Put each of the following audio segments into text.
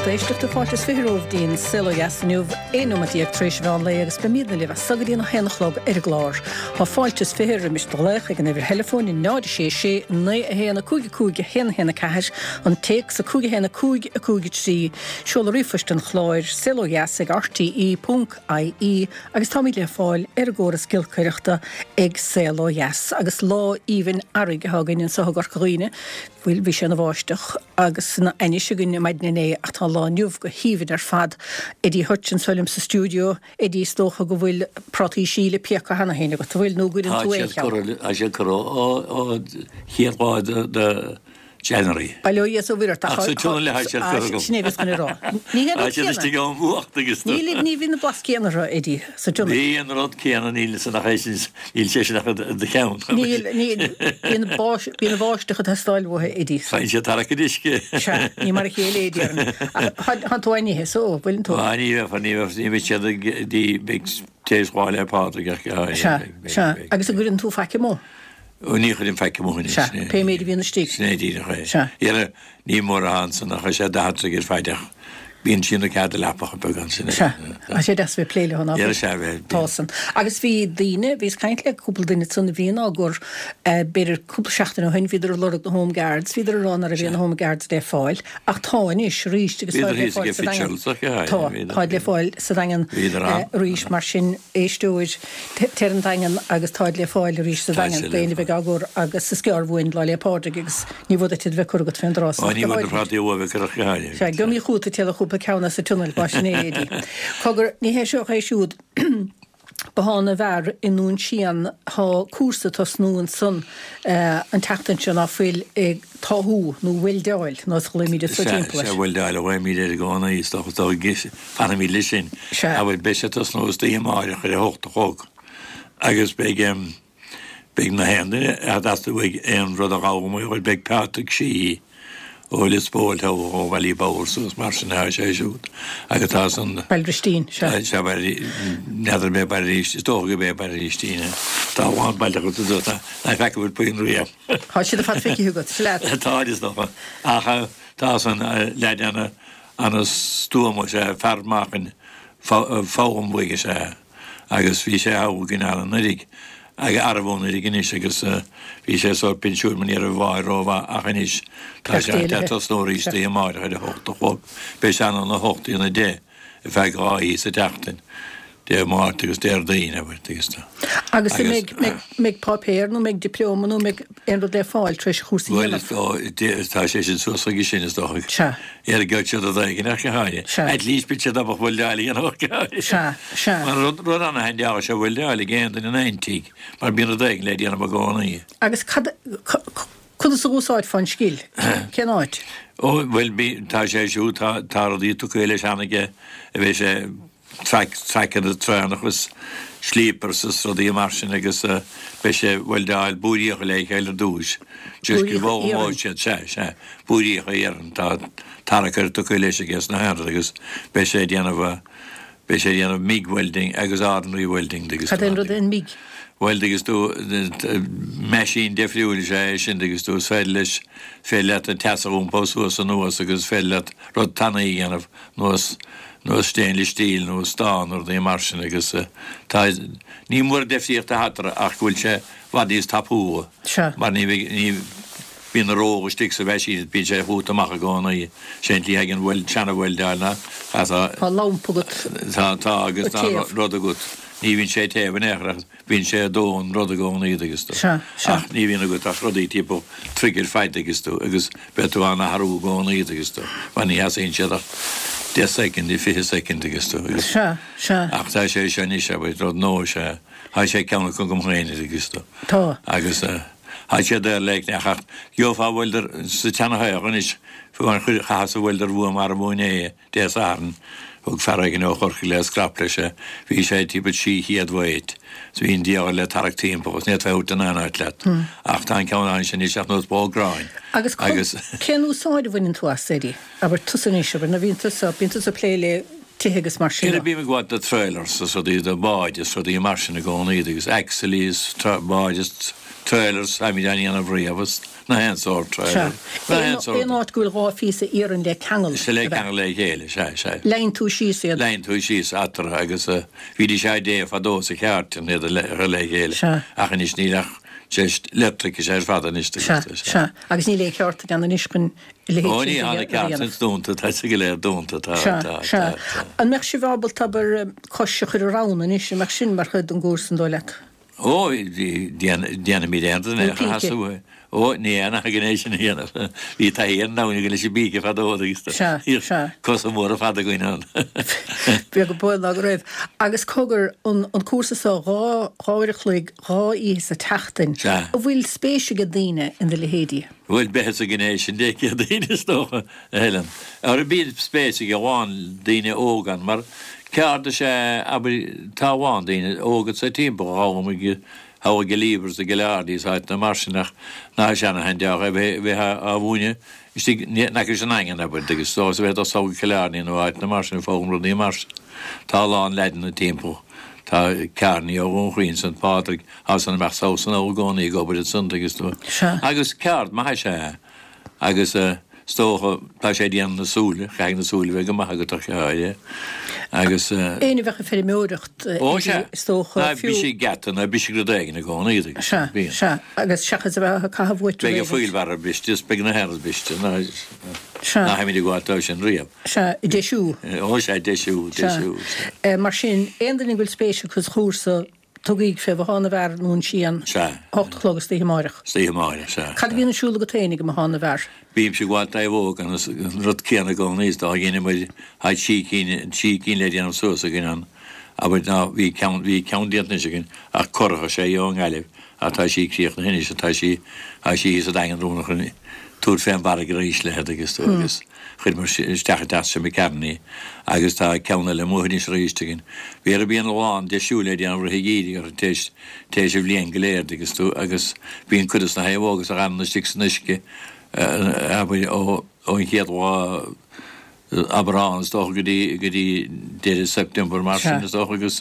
Éisteachta, fáilte is 20 romhaibh dtí'n Saol Ó Dheas inniu, 11 nóimeat tar éis an mheán lae agus beimídne libh as so go dtí'n 1 a chlog ar an gclár. Tá fáilte is 20 roimis do ghlaoch ag an uimhir theileafóin 0 6 6 9 1 5 5 1 1 4, an téacs 5 1 5 5 3, seoladh ríomhphoist an chláir, saolodheas ag rte.ie agus táimid le fáil ar an gcóras giolcaireachta ag Saol Ó Dheas. Agus lá aoibhinn earraigh atá againn anseo i gCorca Dhuibhne. Bhuel, bhí sé ina bháisteach agus ina ainnis againn maidin inné ach tá an lá inniu go haoibhinn ar fad. Eddie Hutch anseo liom sa stiúideo. Eddie, is dócha go bhfuil prátaí síle pioctha cheana féin agat, an bhfuil, nó an gcuireann tú aon cheann? Tá siad curtha ó chéad lá de January. Bail ó Dhia is ó Mhuire ort ach sa tionól atá siad curtha agam. Sin é a bhíos chun a rá. Ní hé an rud céanna. Tá siad istigh ón bhfuacht agus. Ní bhíonn an blas céanna orthu, Eddie, sa tionól. Ní an rud céanna, níl san ach é sin, níl sé sin ach i do cheann. Níl, níl, bíonn an bháisteach ag teastáil uathu, Eddie. Faigheann siad tarrac an uisce. Sea, ní mar a chéile é, déarfainn. Ach thánn tú á n-ithe, so, bhfuileann tú? Á, ní bheifear, ní bheifear, ní bheidh siad ag, ní bheidh tar éis Lá 'le Pádraig ach, Sea, sea, agus an gcuireann tú faic amuigh? Ó, ní chuirim faic amuigh anois. Sea, pé méid a bhíonn istigh. Sin é díreach é. Sea. Dhera, ní mór atá ansan ach tá sé 40 troigh ar faid ach bíonn sí ina cead a leapacha beaga ansin. Sea, tá sé deas a bheith ag plé leo, ná fuil? Dhera, sea, bheith. Tá san. Agus bhí daoine, bhíos ag caint le cúpla duine ansan a bhíonn á gcur, b'fhéidir cúpla seachtain ó shin, bhíodar ag lorg na Home Guards, bhíodar ag rá ná raibh aon Home Guards le fáil, ach tá anois arís agus táid le fáil sa Daingean. Tá, táid le fáil sa Daingean arís, mar sin, éisteoir, Téir 'on Daingean agus táid le fáil arís sa Daingean d'éinne a bheidh á gcur agus is gearr uainn Lá 'le Pádraig agus ní mhór duit iad a bheith curtha agat fén dtráth san. Ní bhfuil na prátaí uaibh ag cur ach go háirithe. Sea, gheobhaimid chugat ag téaladh chúpla ceann as an tionól, mar sin é, Eddie. Cogar, ní hé seo ach é siúd Bothán na bhFear i nDún Síon, tá cúrsa ag tosnú ansan an tseachtain seo ná fuil ag táthú nó weildeáil, nós a ghlaoimid anso timpeall air. Sea, weildeáil a ghlaoimid air i gcónaí, is dócha, is dócha, fanfaimid leis sin. Sea. Abair, beidh sé ag tosnú istoíche amáireach ar a hocht a chlog agus beidh, beidh na haon duine a dteastaigh uaidh aon rud a dh'fhoghlaim uaidh, beidh Patrick Sheehy ó Lios Póil thall ó Bhallyboughal suas mar sin atá sé siúd agus tá san. Baile Bhristín, sea. Sea, Baile, n'fheadar an é Baile Bhristín, is dócha gurb é Baile Bhristín é. Tá a lán baile acu sa dóigh, ná feaca bhfuil puinn riamh. Tá siad ar fad feicthe agat, sea leat. Tá, is dócha. Ach tá san leaid ana, ana-stuama, is ea, fear meáchain foghlaim uaidh is ea agus bhí sé thall againn anuraidh, arbh anuraidh anois agus bhí sé sórt pinsiúin mar ní raibh a mháthair rómhaith ach anois tá sé ag tosnú arís istoíche amáireach ar a hocht a chlog. Beidh sé ann óna hocht dtí'n a deich ar feadh dhá oíche sa tseachtain. Dé Máirt agus Déardaoin, abair, agus tá. Agus an mbeidh, mbeidh páipéar nó mbeidh dioplóma nó mbeidh aon rud le fáil tar éis an chúrsa a dhéanamh? Bhuel, is dóigh, tá sé sin suas chuige sin, is dócha. Sea. Ar gheobhaidh siad rud éigin ach go háirithe. Sea. At least beidh siad ábalta weildeáil a dhéanamh ach go háirithe. Sea, sea. Mar rud, rud ana-haindeach is ea weildeáil ag aon duine in aon tigh, mar bíonn rud éigin le déanamh i gcónaí. Agus cad, conas a dh'úsáidfeá an scil? Cén áit? Ó, bhuel, bí, tá sé siúd, tá, tá rudaí tugtha leis cheana aige a bheidh sé, traic, traiceanna traenach is sleepers is rudaí mar sin agus beidh sé ag weildeáil búiríocha le chéile ar dtúis. Just go bhfoghlaimeoidh siad, sea, sea, búiríocha iarainn, tá tarracaire tugtha leis aige sna haon rud agus beidh sé ag déanamh, beidh sé ag déanamh MIG welding agus ordinary welding agus. Cad é an rud é an MIG? Bhuel, agus tú, meaisín deifriúil is ea é sin, agus tú, is féidir leis, is féidir leat an teas a iompó suas anuas agus is féidir leat rud tanaí a dhéanamh nós nós stainless steel nó stán nó rudaí mar sin agus tá, ní mór deifríocht atá eatarthu ach go bhfuil sé i bhfad níos tapúla Sea. mar ní bheidh, ní, bíonn an ró istigh sa mheaisín is bíonn sé chugat amach i gcónaí. Sé an tslí a thagann wel, seana-weildeáil ná tá. Tá lampa agat. Tá, tá agus tá rud agat. Ní bhíonn sé ag téamh in aon chor ach bíonn sé ag dó an rud i gcónaí agus tú. Sea, sea. Ach ní bhíonn agat ach rudaí timpeall troigh ar fad agus tú, agus beidh tú á n-athrú i gcónaí agus tú, mar ní sheasaíonn siad ach 10 soicind, 20 soicind agus tú, agus. Sea, sea. Ach tá sé seo anois, abair, rud nua is ea, tá sé ceann acu agam féin agus tú. Tá. Agus tá sé daor le ach gheofá welder sa tseanathaoch anois, fiú amháin chaitheas welder uaim arbh inné. Dé Sathairn, thug fear éigin ó Chorcaigh le scrap leis é. Bhí sé timpeall 600 weight. 's bhí an diabhal le tarrac timpeall agus ní fhéadfá é a thabhairt in aon áit leat. Ach tá an ceann ansin anois ach nós bó gráin. Agus cén úsáid a bhaineann tú as, Eddie? Abair tusa anois, abair, nó bhíonn tusa, bíonn tusa ag plé le. tithe agus mar sin de. Bím ag gabháil do trailers is rudaí, do báid is rudaí mar sin i gcónaí agus axleí is báid is trailers, táimid á ndéanamh riamh is na haon sórt trailer, na haon sórt. Aon áit go bhfuil 2 phíosa iarainn le ceangal. Sea, le ceangal le chéile, sea, sea. Leigheann tú síos iad. Leigheann tú síos eatarthu agus bhídís á dtéamh fadó sa chairt iad a chur le chéile ach anois níl ach just leictreachas ar fad anois. Sea, sea. Agus níl aon cheártain ann anois chun a leithéid Ó sin ní, a tá na dhéanamh. ceártains dúnta, tá siad go léir dúnta, tá, Sea, tá, sea. tá, tá. An mbeadh sibh ábalta, abair, cois a chur ar abhainn anois, an mbeadh sin mar chuid den gcúrsa, an dóigh leat? Ó, déanfaimid aon rud in aon chor, sheasamh. Ó, ní aon againn é sin a dhéanamh. Bhí taithí ar an abhainn againn leis an bpíce fadó agus Sea, sea. cosa móra fada againn ann. Beag an baol ná go raibh. Agus cogar, an, an cúrsa so, 2, 2 uair a chloig, 2 oíche sa tseachtain, Sea. an bhfuil spéis ag daoine in do leithéidí? Bhuel, beidh sa ghné sin de Chéadaoin is dócha, a Helen. Ara bíonn spéis ag a lán daoine óga ann, mar ceard is ea, abair, tá a lán daoine óga sa timpeall a ghabhann thall go Leavers, go Killarney is áiteanna mar sin ach ná seana-shean-deoch é bheith á mhúineadh istigh in aice leis an nDaingean, abair, agus is dócha bheith ag dul sall go Killarney nó áiteanna mar sin ag foghlaim rudaí mar sin. Tá a lán leaideanna timpeall. Tá Kearney ó Dhún Chaoin, St Pádraig, Tá san amach sall san i gcónaí ag obair ansan agus tú. Sea. Agus ceard maith is ea é. Agus is dócha, tá sé ag déanamh na súile, caithfidh na súile bheith go maith agat ach é. Agus. Éinne a bheadh ag feirmeoireacht Ó sea. is dócha, Ná fiú. bisigh geata, ná bisigh rud éigin i gcónaí agus Sea, bíonn. sea. Agus seachas a bheith ag caitheamh uait Beidh an wheelbarrow briste is beidh na haon rud briste, ná Sea. ná tháimid ag gabháil dó sin riamh. Sea, deisiú. Ó sea, deisiú, deisiú, sea. Sea. Mar sin, aon duine go bhfuil spéis acu sa chúrsa, Tugaig fé Bhothán na bhFear i nDún Síon, Sea. 8 a chlog istoíche amáireach. Istoíche amáireach, sea. Cad a bhíonn ar siúl agat féin ag an mBothán na bhFear? Bímse ag gabháil d'naomhóg an rud céanna i gcónaí is dá dheineamair tá trí cinn, trí cinn le déanamh suas againn ann, abair ná bhí ceann, bhí ceann déanta anois againn ach curach is ea í ón nGaillimh ach tá sí críochnaithe anois tá sí, tá sí thíos sa Daingean romhainn chun tabhairt fén bhfarraige arís léi agus tú agus. Chuireamar isteach i dteach seo McCarron í agus tá ceann eile amuigh anois arís againn. Bhí bíonn a lán deisiú le déanamh rith an gheimhridh orthu tar éis tar éis an bhliain go léir agus tú agus bíonn cuid de na naomhóga a fhanann istigh san uisce abair ó ón chéad lá Aibreán is dócha go dtí go dtí deireadh September mar sin is dócha agus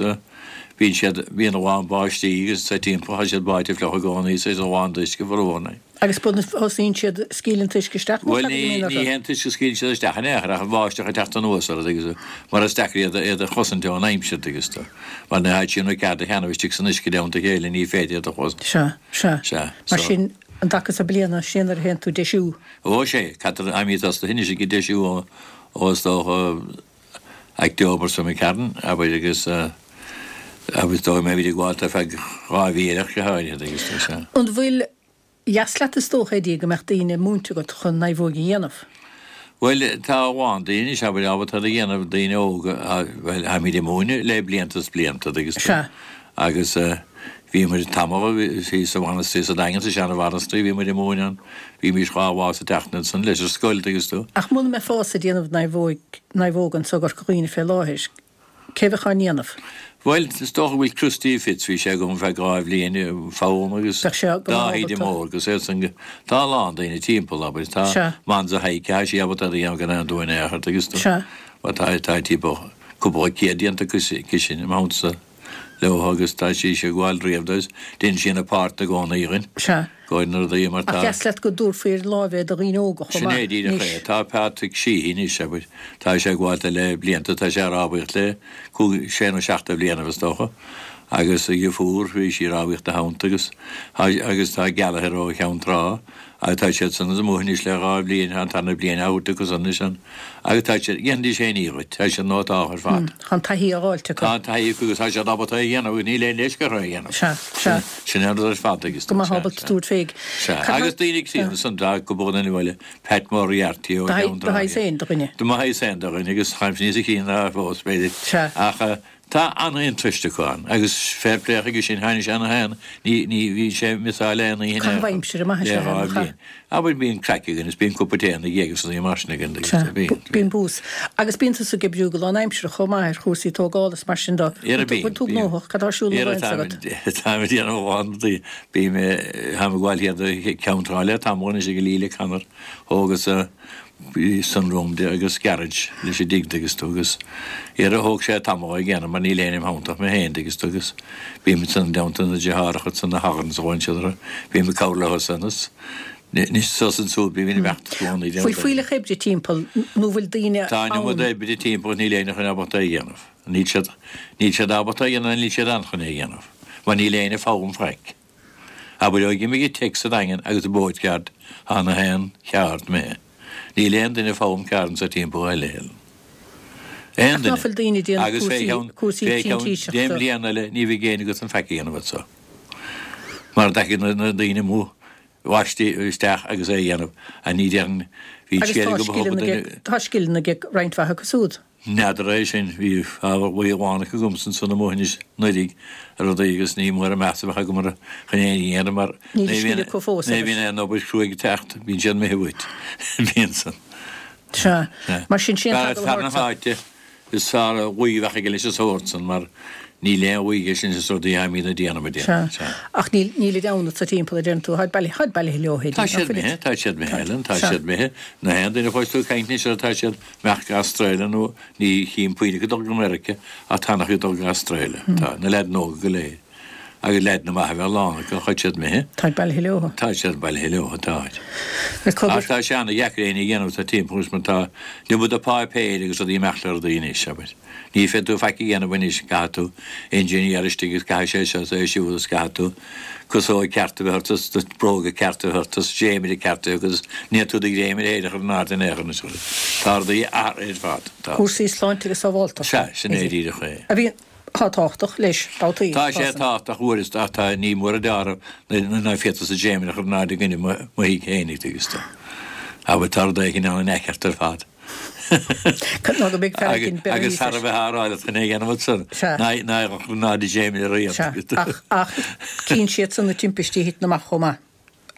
bíonn siad bíonn a lán báistí agus sa timpeall tá siad báite fliuch i gcónaí is a lán d'uisce foriomlán. Agus ba thosaíonn siad scaoileann an t-uisce isteach nó Bhuel cad a ní bhíonn orthu? ní hé an t-uisce a scaoileann siad isteach in aon chor ach an bháisteach ag teacht anuas orthu agus mar is deacair iad iad a chosaint ón aimsir agus tú mar nuair atá siad ina cead a cheannamh istigh san uisce i dteannta a chéile ní féidir iad a chosaint. Sea, sea. Sea, Mar so. sin an dtaca so bliana sin nuair a théann tú ag deisiú. Ó sea, caithfear táimid tosaithe anois ag deisiú ó ó is dócha October so McCarron abair agus agus dóigh mbeimid ag gabháil ar feadh 2 mhí eile ach go háirithe agus tá sé. An bhfuil dheas leat is dócha Eddie go mbeadh daoine múinte agat chun naomhóig a dhéanamh? Bhuel tá a lán daoine anois abair ábalta iad a dhéanamh daoine óga bhuel táimid ag múineadh le blianta is blianta agus Sea. agus bhíomar tamall thíos sa mhainistir sa Daingean sa seana-mhainistir bhíomar ag múineadh ann bhímís 2 lá sa tseachtain ansan leis an scoil agus tú. Ach muna mbeifeása ag déanamh naomhóig naomhóg anso i gCorca Dhuibhne fé láthair, cé bheadh á ndéanamh? Bhuel, is dócha go bhfuil Christy Fitz, bhí sé agam feadh 2 bhliain, foghlaim agus Bheadh sé go maith Dáithí de ábalta. Mór agus iad san, tá a lán daoine timpeall, abair, tá Sea. Manza Haidhc, tá sí ábalta iad a dhéanamh gan aon dua in aon chor, agus tú, Sea. bhuel, tá, tá timpeall cúpla céad déanta aici sin, i m'theannta. leo agus tá sí ag gabháil riamh agus déanann sí ina páirt i gcónaí againn. Sea. Go na rudaí mar Ach tá. dheas leat go dtabharfaí ar láimh é do dhaoine óga chomh Sin é maith díreach anois. é. Tá Patrick Sheehy anois, abair, tá sé ag gabháil le blianta, tá sé ag rámhaíocht le cúig, sé nó seacht de bhlianaibh is dócha, agus a dheirfiúr, bhí sí ag rámhaíocht ina theannta agus, agus tá Gallagher ó Cheann Trá, Agus tá siad san amuigh anois le 2 bhliain, tá an tarna bliain á thabhairt acu san anois ann. Agus tá siad, dhéanfaidís aon ní dhuit, tá siad nótáltha ar fad. Tá an taithí á fháilt acu. Tá an taithí acu agus tá siad ábalta é a dhéanamh agus níl aon leisce orthu é a dhéanamh. Sea, sea. Sin an rud ar fad agus. Go mbeadh ábalta tabhairt féig. Sea, agus daoine críonna san, tá cúpla duine eile, Pat Moriarty ó Cheann Do shaghas féin de dhuine. Do mo shaghas féin de dhuine agus táimse níos críonna fós, b'fhéidir. Sea. Ach Tá an-interest acu ann agus fair play chuige sin, tháinig sé ina haon, ní, ní, bhí sé ag missáil aon oíche Caitheamh aimsire maith is le ea é, 2 nach ea? bhliain. Abair bíonn craic againn is bíonn cupa tae ina dhiaidh agus rudaí mar sin againn agus Sea, bíonn, bíonn bús. Agus bíonn tusa ag oibriú go lánaimseartha chomh maith ar chúrsaí tógála is mar sin de. Ara Bhfuil bíonn, tú bíonn. gnóthach? Cad tá ar siúl Ara ina táim, agat? táim ag déanamh a lán rudaí. Bím, táim ag gabháil thiar do Cheann Trá le tamall anois ag Leela Connor. Thógas. Bhí sunroom de agus garage leis an dtigh dtuigeann tú agus dhera thóg sé tamall é a dhéanamh mar níl éinne im theannta ach mé féin dtuigeann tú agus bím ansan i dteannta na deartháireacha ansan na Hogans a bhain siad orthu bím ag cabhrú leo san is anois suas ansúd bím in imeacht i gcónaí déanamh Bhfuil fuílleach oibre timpeall nó bhfuil daoine Tá an iomad ann? oibre timpeall níl éinne chun ábalta é a dhéanamh. Níl siad níl siad ábalta é a dhéanamh níl siad ann chun é a dhéanamh mar níl éinne ag foghlaim faic. Abair ó d'imigh an teic sa Daingean agus an boatyard tá na haon cheárd imithe. Níl aon duine ag foghlaim ceárd anso timpeall a thuilleadh. Aon Ach ná duine. fuil daoine ag déanamh Agus fé cheann cúrsaí fé cheann deich printíseachta. mbliana eile ní bheidh éinne agat chun faic a dhéanamh anso. Mar dtagann na na daoine amuigh bhaistí isteach agus é a dhéanamh. Ach ní déarfainn bhí Agus scéal tá agam a thug scileanna duine tá scileanna ag roinnt mhaith acu siúd. N'fheadar é sin. Bhí ábhar buí amháin acu agamsa ansan amuigh anois anuraidh ar rudaí agus ní mór an meas a bheadh agam orthu chun aon ní a dhéanamh mar Níl a scil acu fós ní bhíonn aon obair chruaidh ag teacht, bíonn siad imithe uait. Bíonn san. Sea. Mar sin, sé an t-eagal Fear na háite is fearr a ghuí a bheadh aige leis an sórt san mar níl aon ghuí aige sin is rudaí aimíd a déanamh a déanamh. Sea. Ach níl, nílid ann anso timpeall a deireann tú. Táid bailithe, táid bailithe leo, Tá siad imithe, tá siad imithe, Ellen, tá siad imithe. Na haon duine a chlois tú ag caint anois orthu tá siad imeacht go Astráile nó ní chím puinn acu ag dul go Meiriceá ach tá an-chuid ag dul go Astráile. Tá, na leaideanna óga go léir. Agus leaideanna maithe a bheith lán acu, táid siad imithe. Táid bailithe leo. Tá siad bailithe leo, táid. Ach tá sé ana-dheacair éinne a dhéanamh sa timpeall anois mar tá an iomad de pháipéir agus rudaí imeacht le rudaí anois, abair. Ní féadfaidh tú faic a dhéanamh anois, caithfidh tú engineer istigh agus caithfidh sé seo is é siúd is caithfidh tú casóg ceart a bheith ort is bróga ceart a bheith ort is dréimire ceart a bheith agat is ní tú do dhréimire féin a chur in airde in aon chor anois. Tá rudaí athraithe ar fad. Tá. Cúrsaí sláinte agus sábháilteachta. Sea, sin é díreach é. A bhíonn. Tá tábhachtach leis, babhtaí. Tá sé tábhachtach uaireanta ach tá ní mór a deáramh ná féadfadh sa dréimire a chur in airde i gcoinne mo thigh féinig tuigeann tú. Abair tá rud éigin ann an-aiceart ar fad. Ná go mbeidh fear éigin beirthe Agus thar a bheith á rá leat chun é a dhéanamh ansan ná a chur in airde dréimire riamh. Sea, ach, ach cíonn siadsan na timpistí a thiteann amach chomh maith.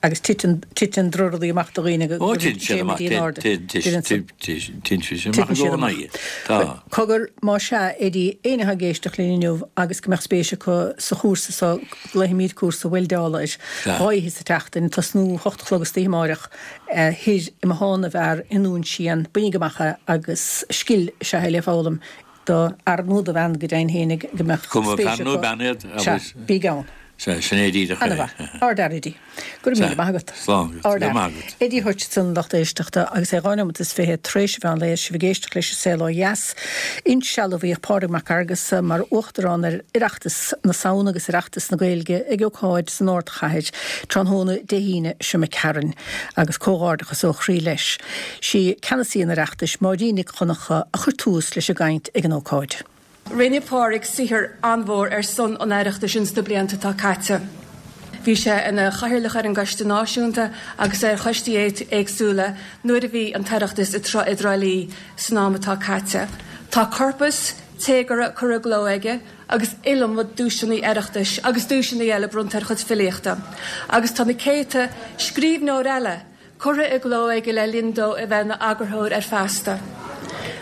Agus titeann, titeann drochrudaí amach do dhaoine go Ó, titeann siad amach, in airde. Titeann siad amach i gcónaí. Tá. Cogar, más ea, Eddie, éinne atá ag éisteacht linn inniu agus go mbeadh spéis acu sa chúrsa so, glaofaimid cúrsa weildeála air, 2 oíche sa tseachtain, tosnú 8 a chlog istoíche amáireach, thoir i mBothán na bhFear i nDún Síon, bainigí amach é agus scil is ea é le foghlaim. Do fhear nó do bhean go deimhin féinig go mbeadh Cuma spéis fear nó acu. bean iad, Sea, agus. bígí ann. Sea, sin é díreach é. Ana-mhaith. Ardfhear, Eddie. Go raibh míle maith agat. Slán agat. Go raibh maith agat. Eddie Hutchinson, lucht éisteachta, agus é 2 neomat is 20 tar éis an mheán lae, sibh ag éisteacht leis An Saol Ó Dheas. Insealbhaíodh Pádraig Mac Fhearghusa mar Uachtarán ar Oireachtas na Samhna agus Oireachtas na Gaeilge ag ócáid san ardchathair tráthnóna Dé hAoine seo imigh tharainn, agus comhghairdeachas ó chroí leis. Sí ceannasaí an Oireachtais, Máirín Nic Dhonncha, a chuir tús leis an gcaint ag an ócáid. Rinne Pádraig saothar an-mhór ar son an Oireachtais ins na blianta atá caite. Bhí sé ina chathaoirleach ar an gCoiste Náisiúnta agus ar choistí éagsúla nuair a bhí an tOireachtas i dTrá Lí san am atá caite. Tá corpas téagartha curtha i gcló aige agus iliomad duaiseanna Oireachtais agus duaiseanna eile bronnta ar a chuid filíochta agus tá na céadta scríbhneoir eile curtha i gcló aige le linn dó a bheith ina eagarthóir ar Feasta.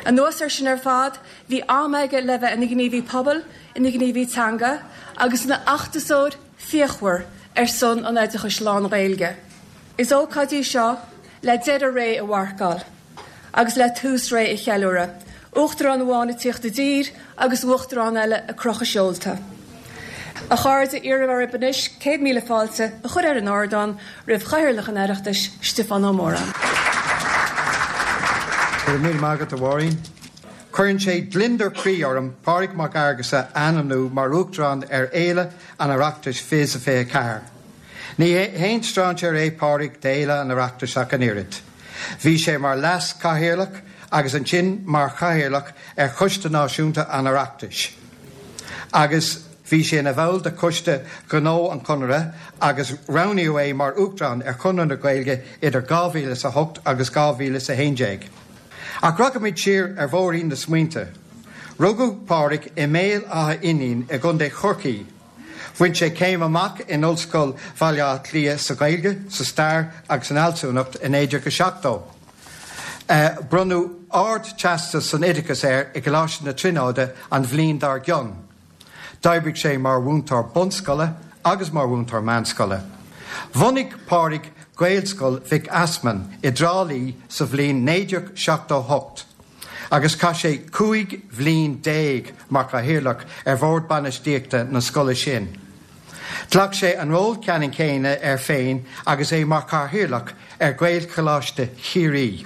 Anuas air sin ar fad, bhí am aige le bheith ina ghníomhaí pobail, ina ghníomhaí teanga agus ina fheachtasóir fíochmhar ar son an oideachais lán-Ghaeilge. Is ócáid í seo le deireadh ré a mharcáil. agus le tús ré a cheiliúradh, Uachtarán amháin ag tíocht i dtír agus Uachtarán eile ag crochadh seolta. A chairde, iarraim oraibh anois 100,000 fáilte a chur ar an ardán roimh Chathaoirleach an Oireachtais, Stiofán Ó Móráin. Go raibh míle maith agat, a Mháirín. Cuireann sé gliondar croí orm Pádraig Mac Fhearghusa a ainmniú mar Uachtarán ar Fhéile an Oireachtais 2024. Ní haon strainséir é Pádraig d'Fhéile an Oireachtais ach an oiread. Bhí sé mar Leas-Chathaoirleach agus ansin mar Chathaoirleach ar Choiste Náisiúnta an Oireachtais agus bhí sé ina bhall de Choiste Ghnó an Chonartha agus roghnaíodh é mar Uachtarán ar Chonradh na Gaeilge idir 2008 agus 2011. Ach rachaimid siar ar bhóithrín na smaointe. Rugadh Pádraig i mBéal Átha Fhínín i gContae Chorcaí. Bhain sé céim amach in Ollscoil Bhaile Átha Cliath sa Ghaeilge, sa Stair agus san Fhealsúnacht i 1970. Bronnadh Ard-Teastas san Oideachas air i gColáiste na Tríonóide an bhliain dár gcionn. D'oibrigh sé mar mhúinteoir bunscoile agus mar mhúinteoir meánscoile. Bhunaigh Pádraig Gaelscoil Mhic Easmainn i dTrá Lí sa bhliain 1978 agus chaith sé 15 bhliain mar chathaoirleach ar bhord bainistíochta na scoile sin. Ghlac sé an ról ceannann céanna air féin agus é mar chathaoirleach ar Ghaelcholáiste Chiarraí.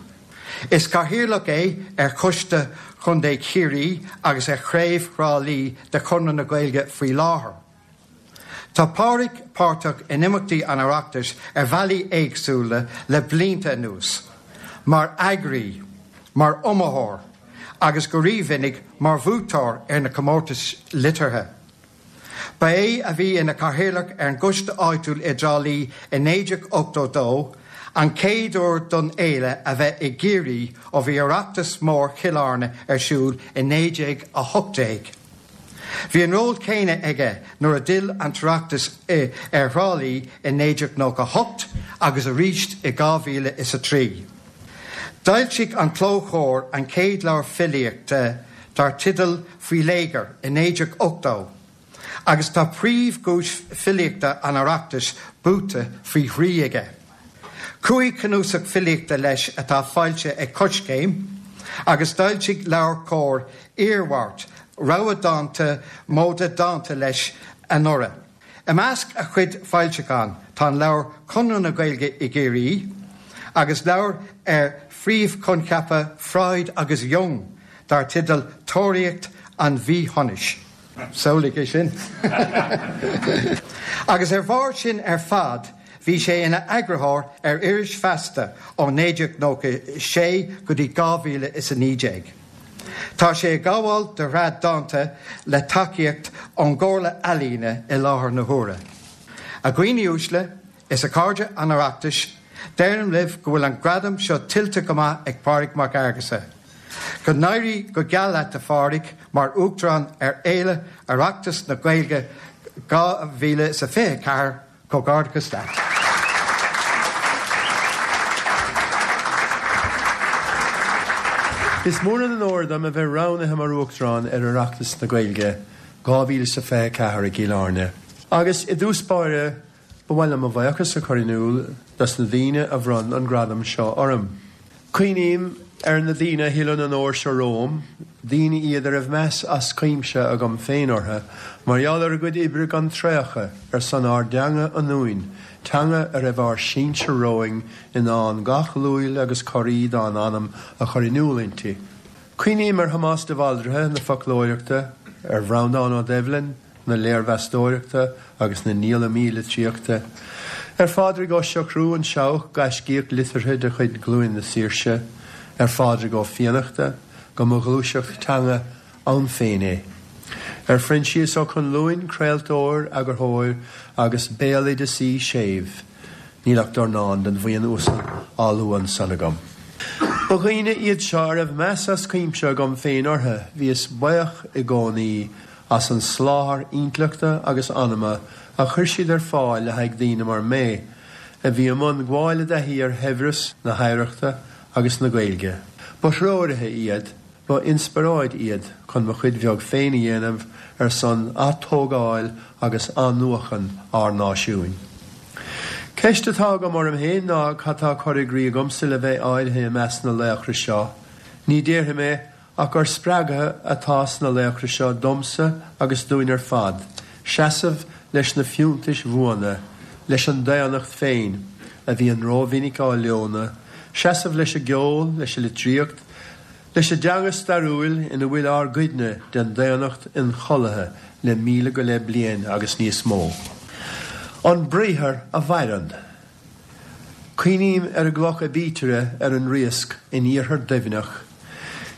Is cathaoirleach é ar Choiste Chontae Chiarraí agus ar Chraobh Thrá Lí de Chonradh na Gaeilge faoi láthair. Tá Pádraig páirteach in imeachtaí an Oireachtais ar bhealaí éagsúla le blianta anuas, mar eagraí, mar iomaitheoir agus go rímhinic mar bhuaiteoir ar na comórtais liteartha. Ba é a bhí ina chathaoirleach ar an gcoiste áitiúil i dTrá Lí i 1982, an chéad uair don fhéile a bheith i gCiarraí ó bhí Oireachtas Mór Chill Airne ar siúl i 1918. Bhí an ról céanna aige nuair a d'fhill an tOireachtas ar Thrá Lí i 1998 agus arís i 2003. D'fhoilsigh an Clóchomhar an chéad leabhar filíochta dar teideal Faoi Léigear i 1980 agus tá príomhdhuais filíochta an Oireachtais buaite faoi thrí aige. Chúig chnuasach filíochta leis atá foilsithe ag Coiscéim agus d'fhoilsigh LeabhairCOMHAR Iarmhairt, rogha dánta móide dánta leis anuraidh. I measc a chuid foilseachán tá an leabhar Conradh na Gaeilge i gCiarraí agus leabhar ar phríomhchoincheapa Freud agus Jung dar teideal Tóraíocht an Mhíshonais. Samhlaigh é sin! Agus ar bharr sin ar fad bhí sé ina eagarthóir ar iris Feasta ó 1996 go dtí 2019. Tá sé ag gabháil do shraith dánta le tacaíocht ón gComhairle Ealaíne i láthair na huaire. A dhaoine uaisle is a chairde an Oireachtais, deirim libh go bhfuil an gradam seo tuillte go maith ag Pádraig Mac Fhearghusa. Go n-éirí go geal leat a Phádraig mar Uachtarán ar Fhéile Oireachtas na Gaeilge 2024, Comhghairdeachas leat. Is mór an onóir dom a bheith roghnaithe mar Uachtarán ar Oireachtas na Gaeilge 2024 i gCill Airne. Agus i dtús báire, ba mhaith liom mo bhuíochas a chur in iúl dos na daoine a bhronn an gradam seo orm. Cuimhním ar na daoine a thuill an onóir seo romham, daoine iad a raibh meas as cuimse agam féin orthu mar gheall ar a gcuid oibre gan traochadh ar son ár dteanga ionúin, teanga a raibh ár sinsir romhainn in ann gach luail agus corraí dá n-anam a chur in iúl inti. Cuimhním ar Thomás de Bhaldraithe na foclóireachta, ar Bhreandán Ó Doibhlin, na léirmheastóireachta agus na ndíolamaí litríochta, ar Phádraig Ó Siochrú, an Seabhac, gaiscíoch liteartha de chuid Ghlúin na Saoirse, ar Phádraig Ó Fiannachta, go mba ghluaiseacht teanga ann féin é, ar Phroinsias Ó Conluain, craoltóir, eagarthóir agus béaloideasaí séimh. Níl ach dornán den bhuíon uasal á lua ansan agam. Ba dhaoine iad seo a raibh meas as cuimse agam féin orthu, bhíos buíoch i gcónaí as an soláthar intleachta agus anama a chuir siad ar fáil le haghaidh daoine mar mé, a bhí i mbun gabháil i dtaithí ar shaibhreas na hoidhreachta agus na Gaeilge. Ba threoraithe iad, ba inspioráid iad chun mo chuid bheag féin a dhéanamh ar son atógáil agus athnuachan ár náisiúin. Ceist atá agam orm féin ná cad tá curtha i gcrích agamsa le bheith áirithe i measc na laochra seo? Ní déarfaidh mé ach gur spreagadh atá sna laochra seo domsa agus dúinn ar fad, seasamh leis na fiúntais bhuana, leis an daonnacht féin, a bhíonn rómhinic á leonadh, seasamh leis an gceol, leis an litríocht, leis an dteanga stairiúil ina bhfuil ár gcuidne den daonnacht ionchollaithe le 1500 go leith bliain agus níos mó. An briathar a mhaireann. Cuimhním ar an gcloch aibítire ar an Riasc in iarthar Duibhneach.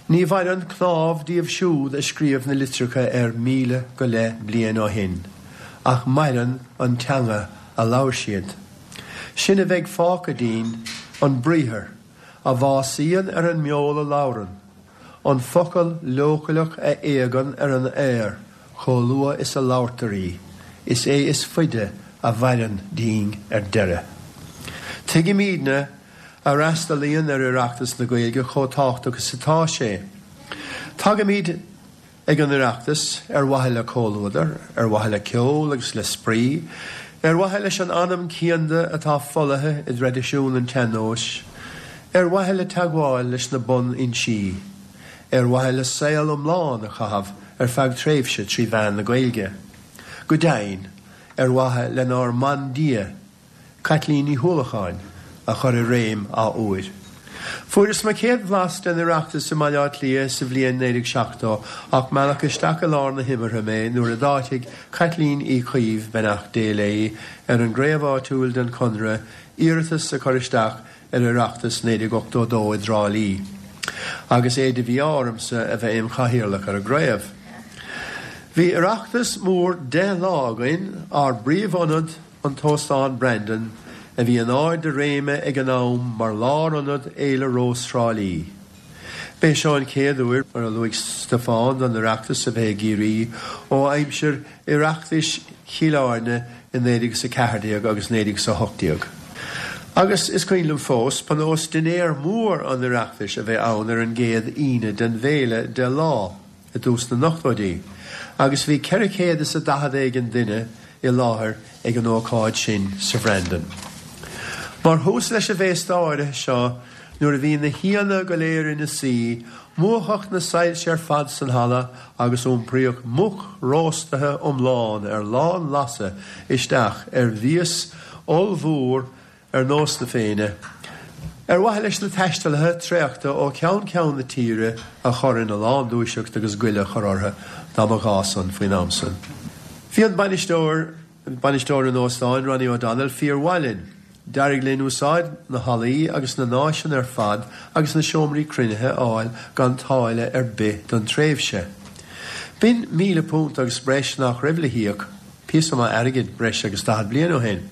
Ní mhaireann cnámh díobh siúd a scríobh na litreacha air 1000 go leith bliain ó shin, ach maireann an teanga a labhair siad. Sin a bheidh fágtha dínn, an briathar, a bhásaíonn ar an mbeol a labhrann, an focal leochaileach a éagann ar an aer chomh luath is a labhartar í, is é is faide a mhaireann dínn ar deireadh. Tuigimidne a fhreastalaíonn ar Oireachtas na Gaeilge chomh tábhachtach is atá sé. Tagaimid ag an Oireachtas ar mhaithe le comhluadar, ar mhaithe le ceol agus le spraoi. Ar mhaithe leis an anam cianda atá folaithe i dtraidisiún an tsean-nóis, ar mhaithe le teagmháil leis na bun-fhoinsí, ar mhaithe le saol iomlán a chaitheamh ar feadh tréimhse 3 mheán na Gaeilge, go deimhin, ar mhaithe lenár mbandia, Caitlín Ní hUallacháin, a chur i réim athuair. Fuaireas mo chéad bhlas den Oireachtas i mBaile Átha Cliath sa bhliain 1970 ach mealladh isteach i lár na himeartha mé nuair a d'áitigh Caitlín Uí Chaoimh, beannacht Dé léi, ar an gcraobh áitiúil den Chonradh iarratas a chur isteach ar Oireachtas 1982 i dTrá Lí, agus é de mhí-ádh ormsa a bheith im chathaoirleach ar an gcraobh. Bhí Oireachtas mór 10 lá againn, ár bpríomhionad, an tÓstán Brandon, a bhí in ard a réime ag an am mar lárionad Fhéile Rós Thrá Lí. B'é seo an chéad uair, mar a luaigh Stiofán, don Oireachtas a bheith i gCiarraí ó aimsir Oireachtais Chill Airne i 1914 agus 1918. Agus is cuimhin liom fós, ba nós dinnéar mór an Oireachtais a bheith ann ar an gcéad Aoine den bhféile, 10 lá. i dtús na n-ochtóidí, agus bhí 400 is a 40 éigin duine i láthair ag an ócáid sin sa Bhrandon. Mar thús leis an bhféasta áirithe seo, nuair a bhí na haíonna go léir ina suí, múchadh na soilse ar fad san halla agus iompraíodh muc róstaithe iomlán ar lán-lasadh isteach ar mhias ollmhór ar nós na Féinne, ar mhaithe leis na taistealaithe traochta ó cheann ceann na tíre a chur ina lán-dúiseacht agus goile a chur orthu dá mba ghá san faoin am san. Bhí an bainisteoir, bainisteoir an óstáin, Ronnie O'Donnell, fíor-mhaith linn. D'éirigh linn úsáid na hallaí agus na n-áiseanna ar fad agus na seomraí cruinnithe a fháil gan táille ar bith don tréimhse. B'in £1,000 agus breis nach raibh le híoc. Píosa maith airgid breis agus 40 bliain ó shin.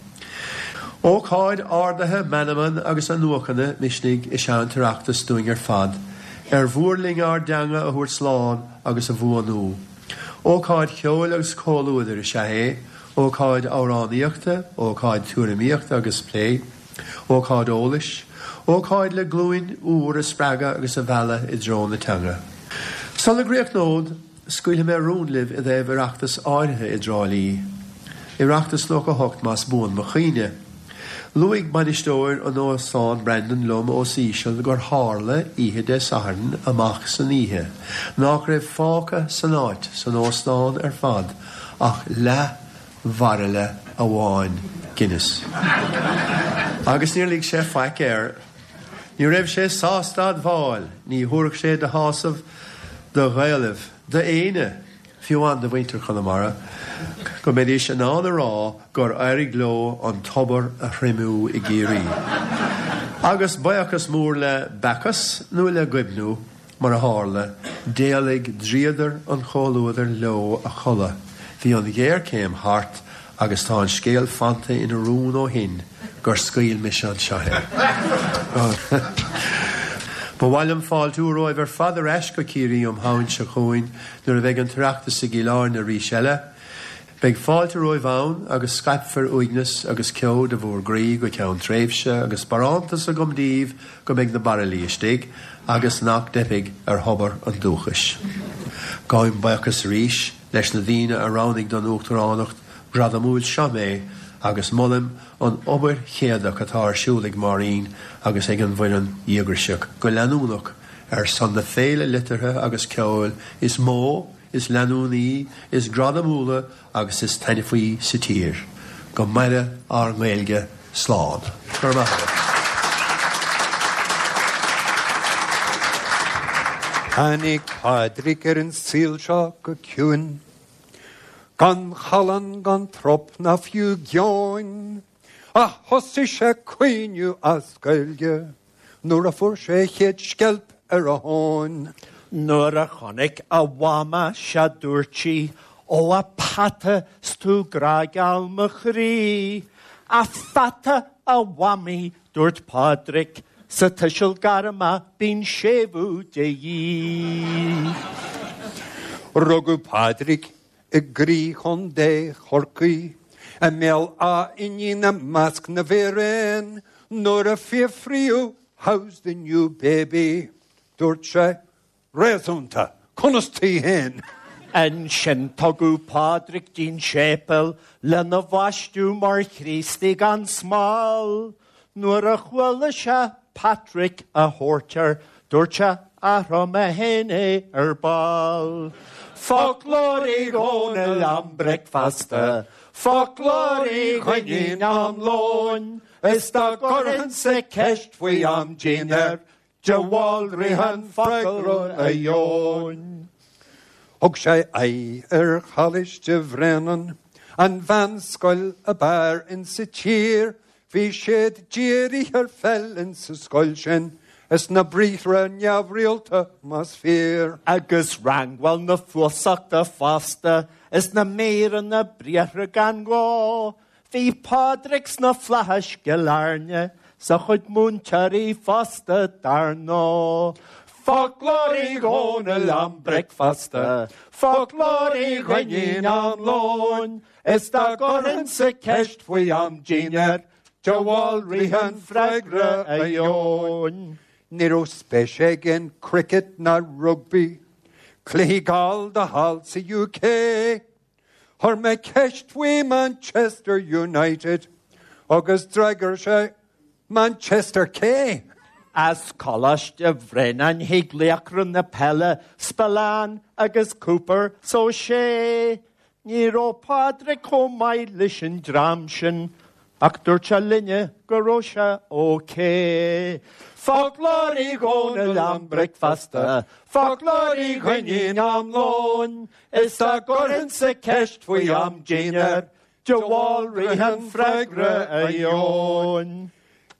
Ócáid ardaithe meanman agus athnuachana misnigh is ea an tOireachtas dúinn ar fad, ar mhór linn ár dteanga a thabhairt slán agus a bhuanú. Ócáid cheoil agus comhluadair is ea é, ócáid amhránaíochta, ócáid tuairimíochta agus plé, ócáid eolais, ócáid le glúin úr a spreagadh agus a mhealladh i dtreo na teanga. Sula gcríochnód, Scaoilfidh mé rún libh i dtaobh Oireachtas áirithe i dTrá Lí. Oireachtas 98 más buan mo chuimhne. Luaigh bainisteoir an Óstáin Brandon liom os íseal gur tharla oíche Dé Sathairn amach san oíche nách raibh fágtha san áit, san óstán ar fad, ach leath bhairille amháin Guinness. Agus níor lig sé faic air. Ní raibh sé sásta admháil, ní thabharfadh sé de shásamh do Ghaelaibh, d'éinne, fiú amháin do mhuintir Chonamara, go mbeidís in ann a rá gur éirigh leo an tobar a thriomú i gCiarraí. Agus buíochas mór le Bacchus nó le Goibniú, Mar a tharla, d'éalaigh dríodar an chomhluadair leo a chodladh, bhí an ghéarchéim thart agus tá an scéal fanta ina rún ó shin gur scaoil mise anseo é. Ba mhaith liom fáiltiú romhaibh ar fad ar ais go Ciarraí um Shamhain seo chugainn nuair a bheidh an tOireachtas i gCill Airne arís eile. Beidh fáilte romhaibh ann agus scaipfear uaigneas agus ceo de bhúr gcroí go ceann tréimhse agus barántas agam daoibh go mbeidh na bairillí istigh agus nach dteipfidh ar thobar an dúchais. Gabhaim buíochas arís leis na daoine a roghnaigh don Uachtaránacht ghradamúil seo mé agus molaim an obair chéadach atá ar siúl ag Máirín agus ag an bhfoireann dhíograiseach go leanúnach ar son na féile liteartha agus ceoil is mó is leanúnaí, is gradamúla agus is taitneamhaí sa tír. Go maire ár nGaeilge. Slán. Go raibh maith agat. Tháinig Pádraig ar an saol seo go ciúin, gan challán gan trup ná fiú geoin, ach thosaigh sé ag caoineadh as Gaeilge. Nuair a fuair sé a chéad sceilp ar a thóin. Nuair a chonaic a mhama sea dúirt sí, Ó a pheata 's tú grágeal mo chroí. A pheata a mhamaí, dúirt Pádraic, sa tuiseal gairme bíonn séimhiú de dhíth. Rugadh Pádraic i gcroí Chontae Chorcaí, i mBéal Átha Fhínín i measc na bhfíréan, nuair a fiafraíodh How's the new baby? dúirt sé, Réasúnta, conas taoi féin? Ansin tugadh Pádraig dtí'n séipéal lena bhaisteadh mar Chríostaí gan smál. Nuair a chuala sé Patrick á thabhairt air, dúirt sé, Athróidh mé féin é ar ball. Foclóir Uí Dhónaill am bricfeasta, Foclóir Uí Dhuinnín am lóin, Is dá gcuirfinnse ceist faoi am dinnéir, De Bhaldraithe an freagra a gheobhainn. Thug sé aghaidh ar Choláiste Bhréanainn, an mheánscoil ab fhearr insa tír. Bhí siad dírithe ar pheil insa scoil sin, is na briathra neamhrialta más fíor. Agus rangáil na fuasachta fosta, is na míreanna briathra gan ghá. Bhí Pádraig sna flaithis gCill Airne 's a chuid múinteoirí fosta dar ndóigh. Foclóir Uí Dhónaill am bricfeasta, Foclóir Uí Dhuinnín am lóin, Is dá gcuirfinnse ceist faoi am dinnéir, De Bhaldraithe an freagra a gheobhainn. Ní raibh spéis aige in cricket ná rugbaí, cluichí gallda thall sa UK. Chuir mé ceist faoi Manchester United agus d'fhreagair sé Manchester cé? As Coláiste Bhréanainn thig laochra na peile Spillane agus Cooper 's Ó Sé. Ní raibh Pádraig chomh maith leis an dream sin ach dúirt sé linne go raibh sé ok. Foclóir Uí Dhónaill am bricfeasta, Foclóir Uí Dhuinnín am lóin, Is dá gcuirfinnse ceist faoi am dinnéir, De Bhaldraithe an freagra a gheobhainn.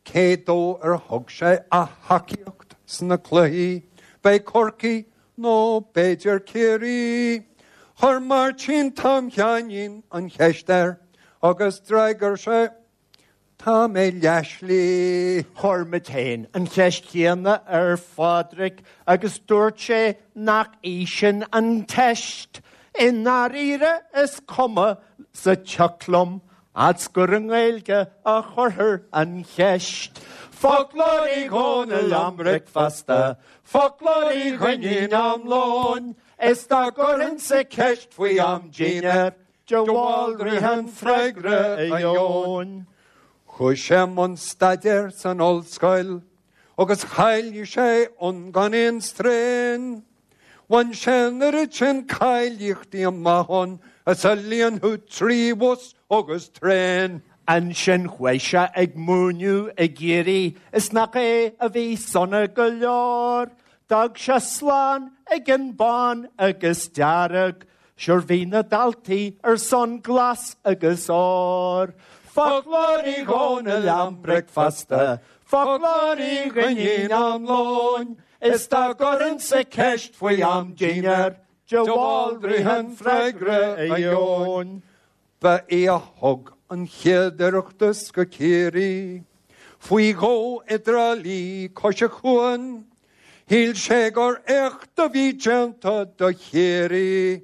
Cé dó ar thug sé a thacaíocht sna cluichí? B'é Corcaigh nó b'fhéidir Ciarraí? Chuir Máirtín Tom Sheáinín an cheist air agus d'fhreagair sé, Tá mé leathshlí. Chuir muid féin an cheist chéanna ar Phádraig agus dúirt sé nach í sin an teist. I ndáiríre is cuma sa tsioc liom fhad's gur i nGaeilge a chuirthear an cheist. Foclóir Uí Dhónaill am bricfeasta, Foclóir Uí Dhuinnín am lóin, Is dá gcuirfinnse ceist faoi am dinnéir, De Bhaldraithe an freagra a gheobhainn. Chuaigh sé i mbun staidéir san ollscoil agus cháiligh sé ann gan aon straidhn. Bhain sé an oiread sin cáilíochtaí amach ann is a líonfadh 3 bhus agus traein. Ansin chuaigh sé ag múineadh i gCiarraí is nach é a bhí sona go leor. D'fhág sé slán ag an bán agus dearg Sure bhí na daltaí ar son glas agus ór. Foclóir Uí Dhónaill am bricfeasta, Foclóir Uí Dhuinnín am lóin, Is dá gcuirfinnse ceist faoi am dinnéir, De Bhaldraithe an freagra a gheobhainn. Ba é a thug an chéad Oireachtas go Ciarraí, faoi dhó i dTrá Lí cois an chuain. Shíl sé gur éacht a bhí déanta do Chiarraí,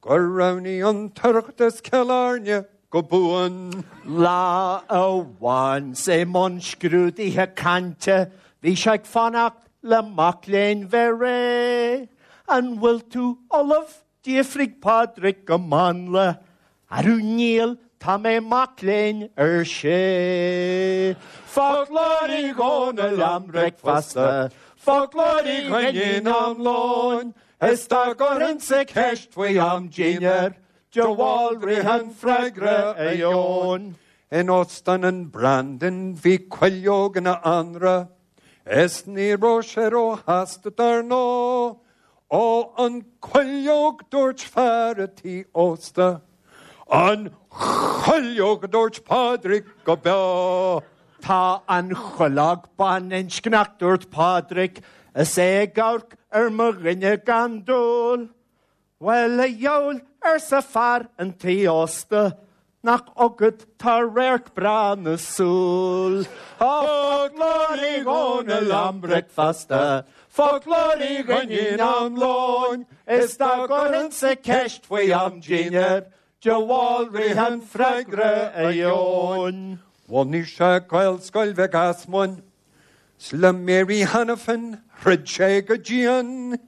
gur roghnaigh an tOireachtas Cill Airne go buan. Lá amháin 's é i mbun scrúdaithe cainte, bhí sé ag fanacht le mac léinn bheith réidh. An bhfuil tú ullamh? D'fhiafraigh Pádraig go mánla. Arú níl, tá mé mac léinn, ar sé. Foclóir Uí Dhónaill am bricfeasta, Foclóir Uí Dhuinnín am lóin, Is dá gcuirfinnse ceist faoi am dinnéir, De Bhaldraithe an freagra a gheobhainn. In Óstán an Brandon bhí cuileog ina anraith, Is ní raibh sé róshásta dar ndóigh. Ó an cuileog dúirt fear a tí ósta. An chuileog a dúirt Pádraig go beo. Tá an chuileog baininscneach dúirt Pádraig is é ag amharc ar mo dhuine gan dúil. Bhuel, a dheabhail, arsa fear an tí ósta, nach agat tá radharc breá na súl. Foclóir Uí Dhónaill am bricfeasta, Foclóir Uí Dhuinnín am lóin, Is dá gcuirfinnse ceist faoi am dinnéir, De Bhaldraithe an freagra a gheobhainn. Bhunaigh sé Gaelscoil Mhic Easmuinn, 's le Mary Hanafin throid sé go dian.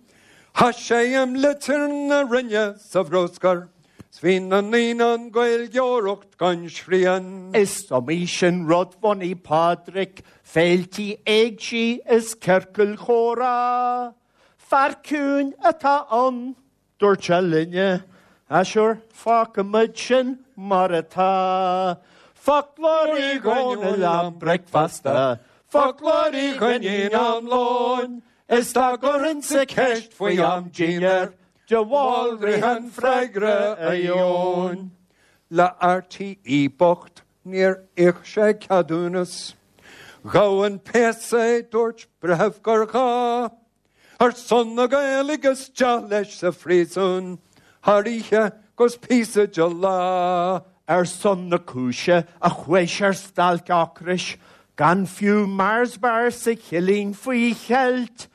Chaith sé im litir na Roinne sa bhruscar 's bhí na ndaoine an Gaeilgeoireacht gan srian. Is iomaí sin rud bhunaigh Pádraic, féiltí éigsí is ciorcail chomhrá. Fear ciúin atá ann. Dúirt sé linne, Ah sure, fágfaimid sin mar atá. Foclóir Uí Dhónaill am bricfeasta, Foclóir Uí Dhuinnín am lóin, Is dá gcuirfinnse ceist faoi am dinnéir, De Bhaldraithe an freagra a gheobhainn. Le RTÉ bocht níor íoc sé ceadúnas. Ghabh an péas é, dúirt breitheamh gur ghá. Ar son na Gaeilge isteach leis sa phríosún thar oíche 'gus píosa de lá. Ar son na cúise a chuaigh sé ar stailc ocrais, gan fiú Mars bar sa chillín faoi cheilt,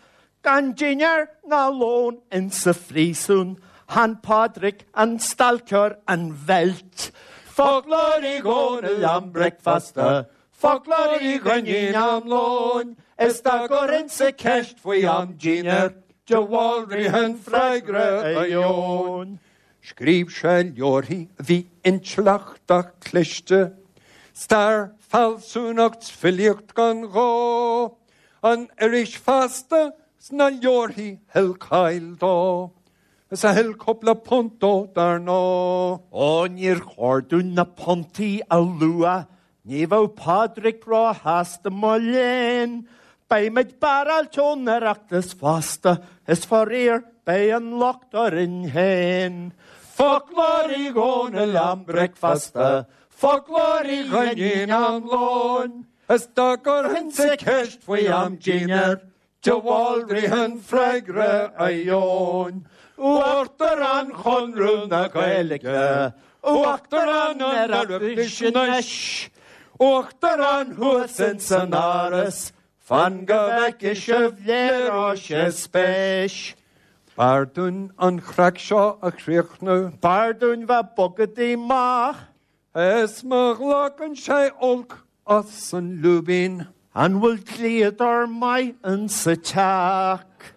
gan dinnéar ná lón insa phríosún, chan Pádraic an stailceoir an bheilt. Foclóir Uí Dhónaill am bricfeasta, Foclóir Uí Dhuinnín am lóin, is dá gcuirfinnse ceist faoi am dinnéir, de Bhaldraithe an freagra a gheobhainn. Scríobh sé leabharthaí a bhí intleachtach cliste, stair, fealsúnacht 's filíocht gan ghá, an iris Feasta 's na leabharthaí thuill cáil dó, is a thuill cúpla punt dó dar ndóigh. Ó níor chóir dúinn na puntaí a lua Ní bheadh Pádraic róshásta mo léan. Beimid barráilte ón Oireachtas fosta, is faraor beidh an locht orainn féin. Foclóir Uí Dhónaill am bricfeasta, Foclóir Uí Dhuinnín am lóin, Is dá gcuirfinnse ceist faoi am dinnéir, De Bhaldraithe an freagra a gheobhainn. Uachtarán Chonradh na Gaeilge, Uachtarán an Oireachtais anois, Uachtarán thuas ins an Áras, fan go bhfeicfidh sibh léireoidh sé spéis. B'fhearr dúinn an chraic seo a chríochnú. B'fhearr dúinn bheith bogadaí mach. Is má ghlacann sé olc as an lúibín. An bhfuil dlíodóir maith insa teach?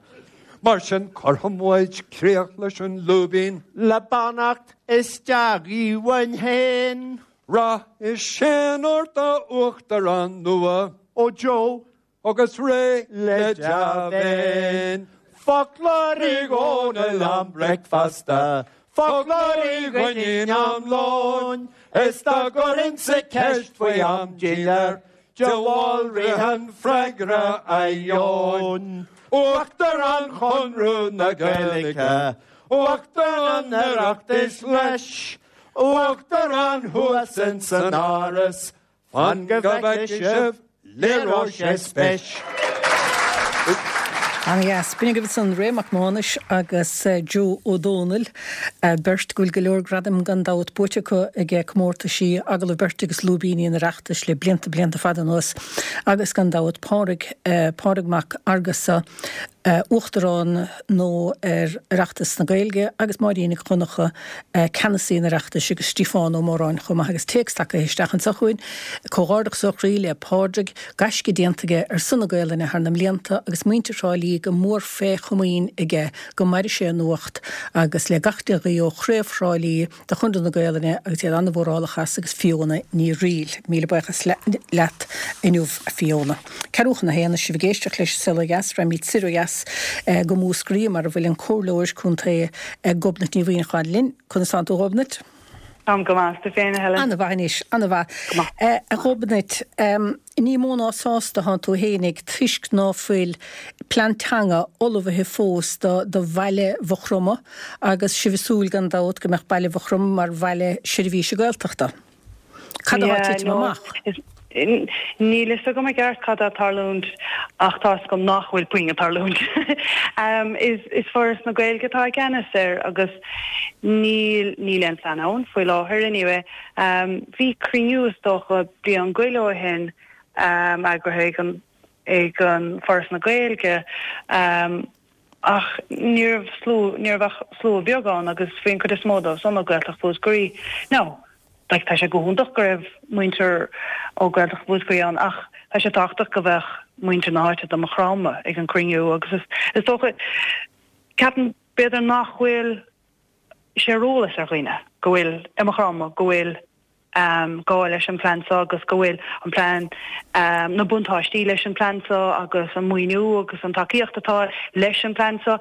Mar sin cuirfidh muid críoch leis an lúibín. Le beannacht is dea-ghuí uainn féin. Rath is séan ort a Uachtarán nua. Ó Joe, Agus réidh le dea-mhéin. Foclóir Uí Dhónaill am bricfeasta, Foclóir Uí Dhuinnín am lóin, Is dá gcuirfinnse ceist faoi am dinnéir, De Bhaldraithe an freagra a gheobhainn. Uachtarán Chonradh na Gaeilge, Uachtarán an Oireachtais leis, Uachtarán thuas ins an Áras, Fan go bhfeicfidh sibh, léireoidh sé spéis. Ana-dheas. B'in agaibh ansan Ray Mac Mánais agus Joe Ó Dónaill, beirt go bhfuil go leor gradaim gan dabht buaite acu ag comórtaisí Agallamh Beirte agus Lúibíní an Oireachtais le blianta, blianta fada anuas agus gan dabht Pádraig, Pádraig Mac Fhearghusa, Uachtarán nua ar Oireachtas na Gaeilge agus Máirín Nic Dhonncha, Ceannasaí an Oireachtais agus Stiofán Ó Móráin chomh maith agus téacs tagtha isteach anseo chugainn, Comhghairdeachas ó chroí le Pádraig, gaisce déanta aige ar son na Gaolainne thar na mblianta agus muintir Thrá Lí go mór fé chomaoin aige, go maire sé ina ucht agus le gach dea-ghuí ó Chraobh Thrá Lí de Chonradh na Gaolainne agus iad an-mhórálach as agus Fiona Ní Fhrighil. Míle buíochas leat inniu a Fiona. Ceathrú chun a haon, is sibh ag éisteacht leis An Saol Ó Dheas, raghaimid soir ó dheas go Múscraí mar a bhfuil an Comhairleoir Contae Gobnait Ní Mhuimhneacháin linn. Conas tánn tú a Ghobnait? Táim go maith, is tú féin a Helen? Ana-mhaith anois, ana-mhaith. Go maith. A Ghobnait, ní mó ná sásta thánn tú fhéinig toisc ná fuil plean teanga ullmhaithe fós do do bhaile Mhaigh Chromtha agus sibh ag súil gan dabht go mbeadh baile Mhaigh Chromtha mar bhaile seirbhíse Gaeltachta. Cad atá ag titim amach? Níl fhios agam i gceart cad atá ag tarlúint ach tá fhios agam nach bhfuil puinn ag tarlúint. Is Foras na Gaeilge atá i gceannas air agus níl níl aon phlean ann faoi láthair anyway. Bhí cruinniú is dócha bliain go leith ó shin eagraithe ag an ag an Foras na Gaeilge ach ní raibh slua, ní raibh ach slua beag ann agus bhí an cuid is mó dóibh san ó Gaeltacht Mhúscraí. Now, like tá sé go hiontach go raibh muintir ó Gaeltacht Mhúscraí ann ach tá sé tábhachtach go bheadh muintir na háite do Maigh Chromtha ag an cruinniú agus is, is dócha. Ceapaim b'fhéidir nach bhfuil sé ar eolas ar dhaoine go bhfuil i Maigh Chromtha go bhfuil gá leis an plean seo agus go bhfuil an plean, na buntáistí leis an plean seo agus an maoiniú agus an tacaíocht atá leis an plean seo.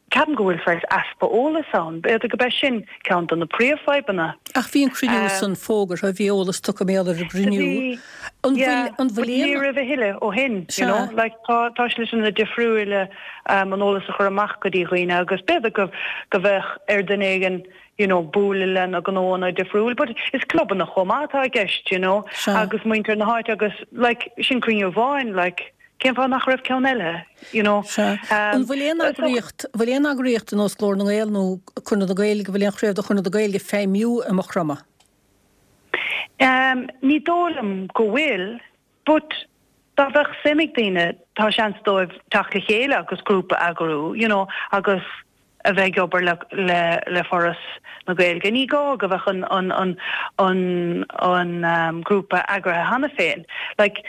Ceapaim go bhfuil saghas easpa eolais ann. B'fhéidir go b'é sin ceann de na príomhfhadhbanna. Ach bhí an cruinniú san fógartha, bhí eolas tugtha mar gheall ar an gcruinniú. Bhí, An bhfuil, an bhfuil aon. Ní raibh a thuilleadh ó shin, you know. Like tá, tá sliteanna difriúila an eolas a chur amach go dtí dhaoine agus b'fhéidir go, go bheadh ar duine éigin, you know, bualadh le na gnóanna difriúil but is clubanna chomh maith atá i gceist, you know, agus muintir na háite agus like sin cruinniú amháin, like cén fáth nach raibh ceann eile, you know. Sea. An bhfuil aon eagraíocht, bhfuil aon eagraíocht ar nós Glór na nGael nó Conradh na Gaeilge, bhfuil aon chraobh de Chonradh na Gaeilge ag feidhmiú i Maigh Chromtha? Um, ní dóigh liom go bhfuil, But dá bheadh suim ag daoine, tá seans dóibh teacht le chéile agus grúpa a eagrú, you know, agus a bheith ag obair le le le Foras na Gaeilge. Ní gá go bheadh an an an an an grúpa eagraithe cheana féin. Like,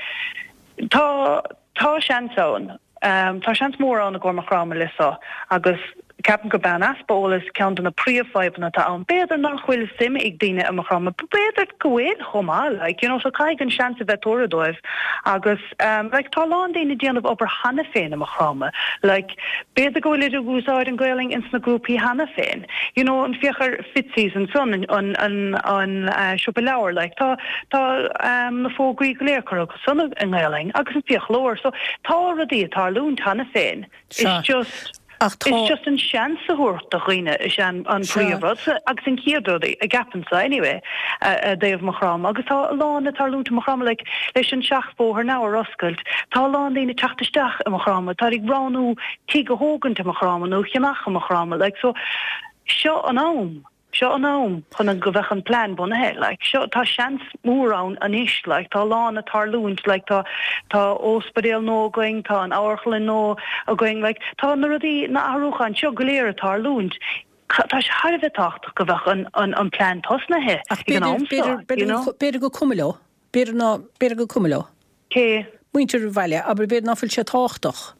tá tá seans ann. Tá seans mór ann i gcomhair Maigh Chromtha le seo agus ceapaim gurb é an easpa eolais ceann de na príomhfhadhbanna atá ann. B'fhéidir nach bhfuil suim ag daoine i Maigh Chromtha, b'fhéidir go bhfuil chomh maith, like, you know, so caithfidh an seans a bheith tabhartha dóibh agus like tá a lán daoine ag déanamh obair cheana féin i Maigh Chromtha, like b'fhéidir go bhfuilid ag úsáid an Ghaelainn ins na grúpaí cheana féin, you know, an féach ar Fitzy's ansan, an, an, an, an siopa leabhar, like tá, tá na fógraí go léir curtha san i nGaelainn agus an fiaclóir. So tá rudaí ag tarlúint cheana féin. It's just It's just an seans a thabhairt do dhaoine is ea an príomhrud agus an chéad rud a gceapaimse anyway i dtaobh Maigh Chromtha agus tá a lán ag tarlúint i Maigh Chromtha like leis an seachbhóthar now ar oscailt tá a lán daoine ag teacht isteach i Maigh Chromtha tá ag roghnú tigh a thógaint i Maigh Chromtha nó a cheannach i Maigh Chromtha like so seo an am. Seo an am chun go bheadh an plean bunaithe, like, seo, tá seans mór ann anois, like, tá a lán ag tarlúint, like, tá, tá ospidéal nua againn, tá an amharclann nua againn, like, tá na rudaí, na athrúcháin seo go léir ag tarlúint, tá sé thar a bheith tábhachtach go bheadh an, an, an plean tosnaithe Ach ag an am seo, you know. B'fhéidir gur cuma leo, b'fhéidir ná, b'fhéidir gur cuma leo. Cé? Muintir an bhaile, abair, b'fhéidir ná fuil sé tábhachtach.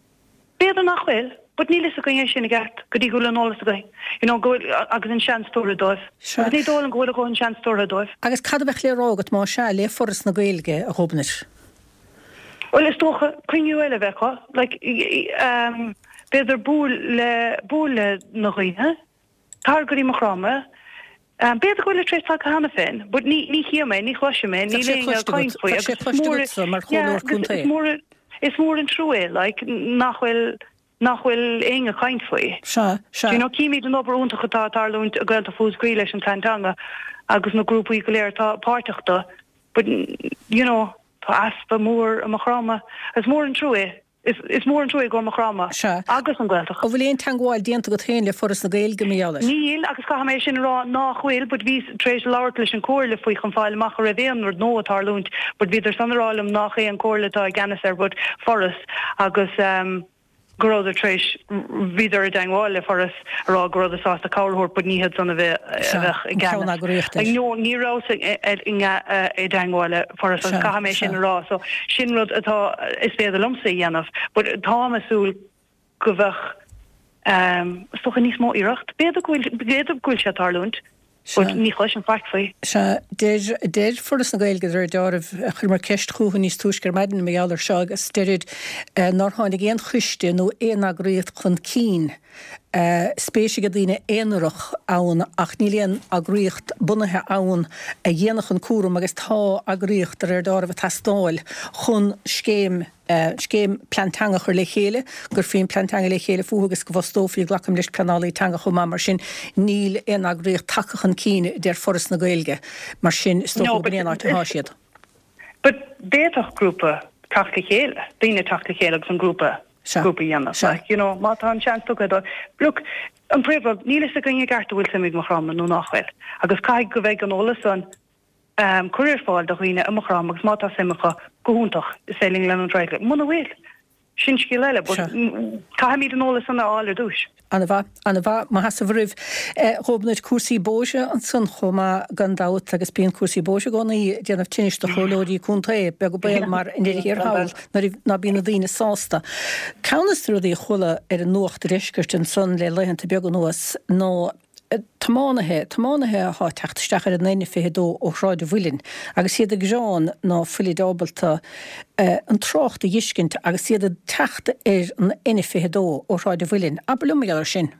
B'fhéidir nach bhfuil, but níl fhios againn é sin i gceart go dtí go bhfuil an eolas againn, you know, go bhfuil, agus an seans tabhartha dóibh. Sea. Agus ní dóigh liom go bhfuil a dhóthain seans tabhartha dóibh. Agus cad a bheadh le rá agat más ea, le Foras na Gaeilge, a Ghobnait? Bhuel, is dócha cruinniú eile a bheith acu, like, ehm, b'fhéidir buail le, buail le na dhaoine, tar go dtí Maigh Chromtha, B'fhéidir go bhfuil tar éis tagtha cheana féin, but ní ní chím é, ní chloisim é, níl éinne ag caint faoi agus is mór yeah agus is mór is mór an trua é like nach bhfuil nach bhfuil éinne ag caint faoi. Sea, sea. You know címid an obair iontach atá ag tarlúint i Gaeltacht Mhúscraí leis an Plean Teanga agus na grúpaí go léir atá páirteach do but you know tá easpa mór i Maigh Chromtha. Is mór an trua é. Is mór an trua i gcomhair Maigh Chromtha Sea. agus an Ghaeltacht. An bhfuil aon teangmháil déanta agat féin le Foras na Gaeilge mar gheall air? Níl, agus caithfidh mé sin a rá nách bhfuil, but bhíos tar éis labhairt leis an Comhairle faoi chun fáil amach an raibh aon rud nua ag tarlúint, but bhíodar san a rá liom nách é an Comhairle atá i gceannas air but Foras agus ehm go rabhadar tar éis, bhíodar i dteangmháil le Foras a rá go rabhadar sásta cabhair a thabhairt but ní hiad san a bheadh Sea, i an gceannas. ceann-eagraíocht air. No, ní rabhas i dteangmháil le Foras agus Sea, caithfidh mé sin sea. a rá so sin rud atá, is féidir liomsa a dhéanamh but táim ag súil go bheadh is dócha níos mó iarracht. B'fhéidir go bhfuil, b'fhéidir go bhfuil sé ag tarlúint but Sea. ní chloisim faic faoi. Sea, deir, deir Foras na Gaeilge de réir deáraimh, chuireamar ceist chucu níos túisce ar maidin mar gheall air seo agus deirid nár tháinig aon choiste nó aon eagraíocht chun cinn, spéis ag daoine aonarach ann ach níl aon eagraíocht bunaithe ann a dhéanfadh an cúram agus tá eagraíocht de réir deáraimh ag teastáil chun scéim scéim plean teanga a chur le chéile, go gcuirfí an plean teanga le chéile fúthu agus go bhfostófaí, glacaim leis, pleanálaí teanga chomh maith. Mar sin níl aon eagraíocht tagtha chun cinn, a deir Foras na Gaeilge. Mar sin is dócha No gurb but in é an áit atá siad. But d'fhéadfadh grúpa teacht le chéile, daoine teacht le chéile agus an grúpa Sea. grúpa a dhéanamh. Sea. Like, you know, má tá an seans tugtha dóibh. Look, an príomhrud, níl fhios againn i gceart an bhfuil suim ag Maigh Chromtha nó nach bhfuil. Agus caithfidh go bheidh an eolas san um, curtha ar fáil do dhaoine i Maigh Chromtha agus má tá suim acu, go hiontach, is féidir linn leanúint ar aghaidh. Muna bhfuil, Sin scéal eile, but caithfimid an eolas san a fháil ar dtúis. Ana-mhaith, ana-mhaith. Mo sheasamh oraibh. Ghobnait, cúrsaí bóithre ansan chomh maith gan dabht agus bíonn cúrsaí bóithre i gcónaí ag déanamh tinnis do chomhairleoirí contae, beag an baol mar i ndeireadh thiar thall nuair ná bíonn na daoine sásta. Ceann des na rudaí a chuala ar an nuacht deiscirt ansan le laethanta beaga anuas ná tiománaithe, tiománaithe athá ag teacht isteach ar an N22 ó Shráid an Mhuilinn agus iad ag gearán ná fuilid ábalta an trácht a dh'fheiscint agus iad ag teacht ar an N22 ó Shráid an Mhuilinn. Abair liom mar gheall air sin.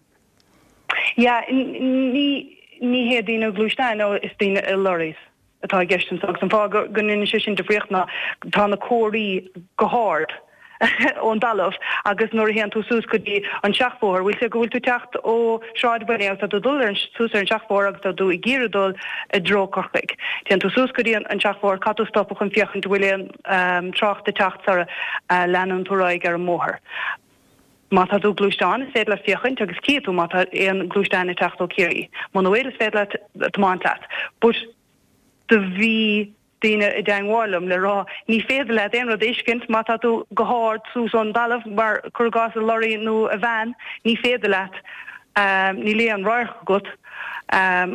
Yeah, ní, ní hé daoine gluaisteáin, no, is daoine i lorries. atá i gceist anseo agus an fáth go ndéanann sé sin difríocht ná tá na comharthaí go hard ón dtalamh agus nuair a théann tú suas go dtí an seachbhóthar, bhfuil sé go bhfuil tú ag teacht ó Shráid an Mhuilinn agus tá tú ag dul ar an suas ar an seachbhóthar agus tá tú ag iarraidh dul i dtreo Corcaigh. Téann tú suas go dtí an seachbhóthar, caithfidh tú stopadh chun féachaint an bhfuil aon trácht ag teacht sara leanann tú ar aghaidh ar an mbóthar. Má tá tú i gluaisteán, is féidir leat féachaint agus cífidh tú má tá aon gluaisteán ag teacht ó Ciarraí. Muna bhfuil, is féidir leat tiomáint leat. But do bhí daoine i dteangmháil liom le rá ní féidir leat aon rud a fheiscint má tá tú go hard suas ón dtalamh mar cuir i gcás i lorry nó i veain, ní féidir leat, níl aon radharc agat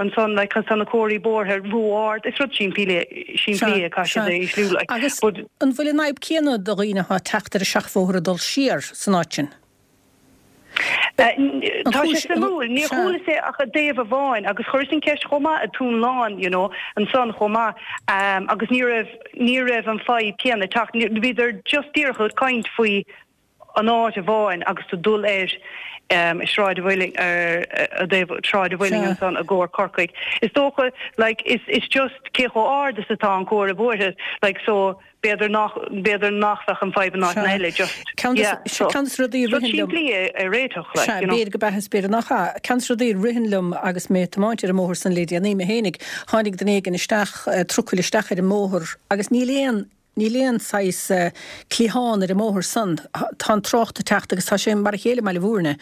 ansan like cos tá na comharthaí bóithre ró-ard. Is rud simplí é, simplí é, caithfidh siad é a ísliú like. Agus But. an bhfuil an fhadhb céanna do dhaoine atá ag teacht ar an seachbhóthar ag dul siar san áit sin? An Tá sé chúis, suimiúil, níor sea. chualas é ach i dtaobh amháin agus chuireas an ceist chomh maith i Dún Lán, you know, ansan chomh maith agus ní raibh, ní raibh an fadhb céanna ag teacht, bhíodar just díreach ag caint faoi an áit amháin agus tú dul ar Sráid an Mhuilinn, ar i dtaobh Sráid an Mhuilinn ansan i gcomhair Corcaigh. Is dócha like is is just cé chomh ard is atá an comhartha bóithre like so b'fhéidir nach b'fhéidir nach bheadh an fadhb in áiteanna eile just Ceann yeah so ceann des rudaí a rud ritheann liom simplí é a réiteach like Sea, you know. b'fhéidir go b'ea is b'fhéidir nach ea. Ceann des rudaí a ritheann liom agus mé ag tiomáint ar an mbóthar san le déanaí mé fhéinig, tháinig duine éigin isteach, trucail isteach ar an mbóthar agus níl aon Níl aon saghas cliathán ar an mbóthar san. Tá an trácht ag teacht, agus tá sé mar a chéile i mBaile Mhúirne,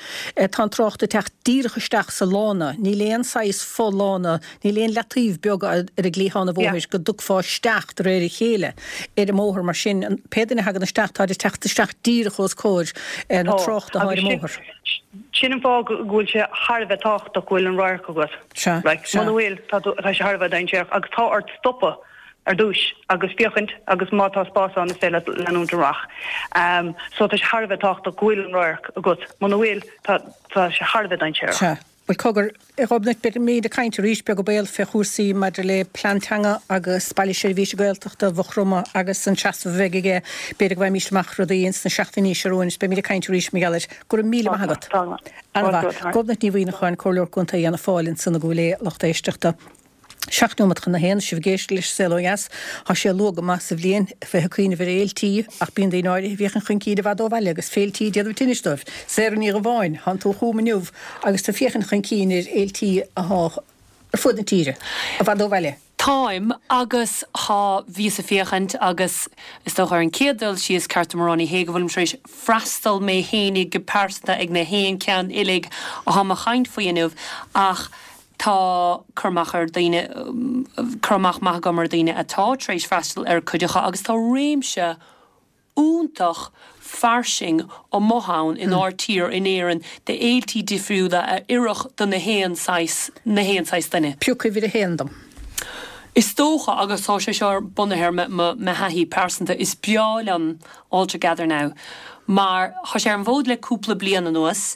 tá an trácht ag teacht díreach isteach sa lána. Níl aon saghas fo-lána, níl aon leataobh beag ar an gcliathán an bhóthair go dtiocfá isteach de réir a chéile ar an mbóthar. Mar sin, pé duine a thagann isteach, táid ag teacht isteach díreach os comhair na Tá, tráchta atá ar agus an sin, mbóthar. sin an fáth go bhfuil sé thar a bheith tábhachtach go bhfuil an radharc agat. Sea, Like, sea. muna bhfuil, tá tú, tá sé thar a bheith dainséarach agus tá ort stopadh. ar dtúis agus féachaint agus má tá spás ann is féidir leat leanúint amach. So tá sé thar a bheith tábhachtach go bhfuil an radharc agat. Muna bhfuil, tá tá sé thar a bheith dainséarach. Sea. Bhuel, cogar, a Ghobnait, beimid ag caint arís, beag an baol, fé chúrsaí maidir le plean teanga agus Baile Seirbhíse Gaeltachta Mhaigh Chromtha agus an seasamh a bheidh aige. B'fhéidir go bhfaighimís amach rudaí ins na seachtainí seo romhainn is beimid ag caint arís mar gheall air. Go raibh míle maith agat. Tá go maith. Ana-mhaith. Gobnait Ní Mhuimhneacháin, Comhairleoir Contae Fhianna Fáil ansan i gCúil Aodha, lucht éisteachta. 7 nóiméad chun a haon, sibh ag éisteacht leis Saol Ó Dheas. Tá sé luath go maith sa bhliain a bheith ag cuimhneamh ar fhéiltí, ach bíonn daoine áirithe a bhféachann chun cinn i bhfad ó bhaile agus féiltí ag déanamh tinnis dóibh. Sarah Ní Dhubháin, thánn tú chugam inniu agus tú ag féachaint chun cinn ar fhéiltí athá ar fuaid na tíre, i bhfad ó bhaile. Táim, agus thá, bhíos ag féachaint agus is dócha ar an chéad dul síos, ceart dom a rá, ní hé go bhfuilim tar éis freastal mé fhéinig go pearsanta ag na haon ceann uilig athá mo chaint faoi inniu ach Tá cur amach ar daoine, cur amach maith agam ar daoine atá tar éis freastal ar cuid acu agus tá réimse iontach fairsing amuigh ann inár tír, in Éirinn, de fhéiltí difriúla a oirfeadh do na haon saghas, na haon saghas duine. Pioc uimhir a haon dom. Is dócha, agus tá sé seo bunaithe ar mo thaithí pearsanta, is breá liom All Together Now mar tá sé ar an bhfód le cúpla bliain anuas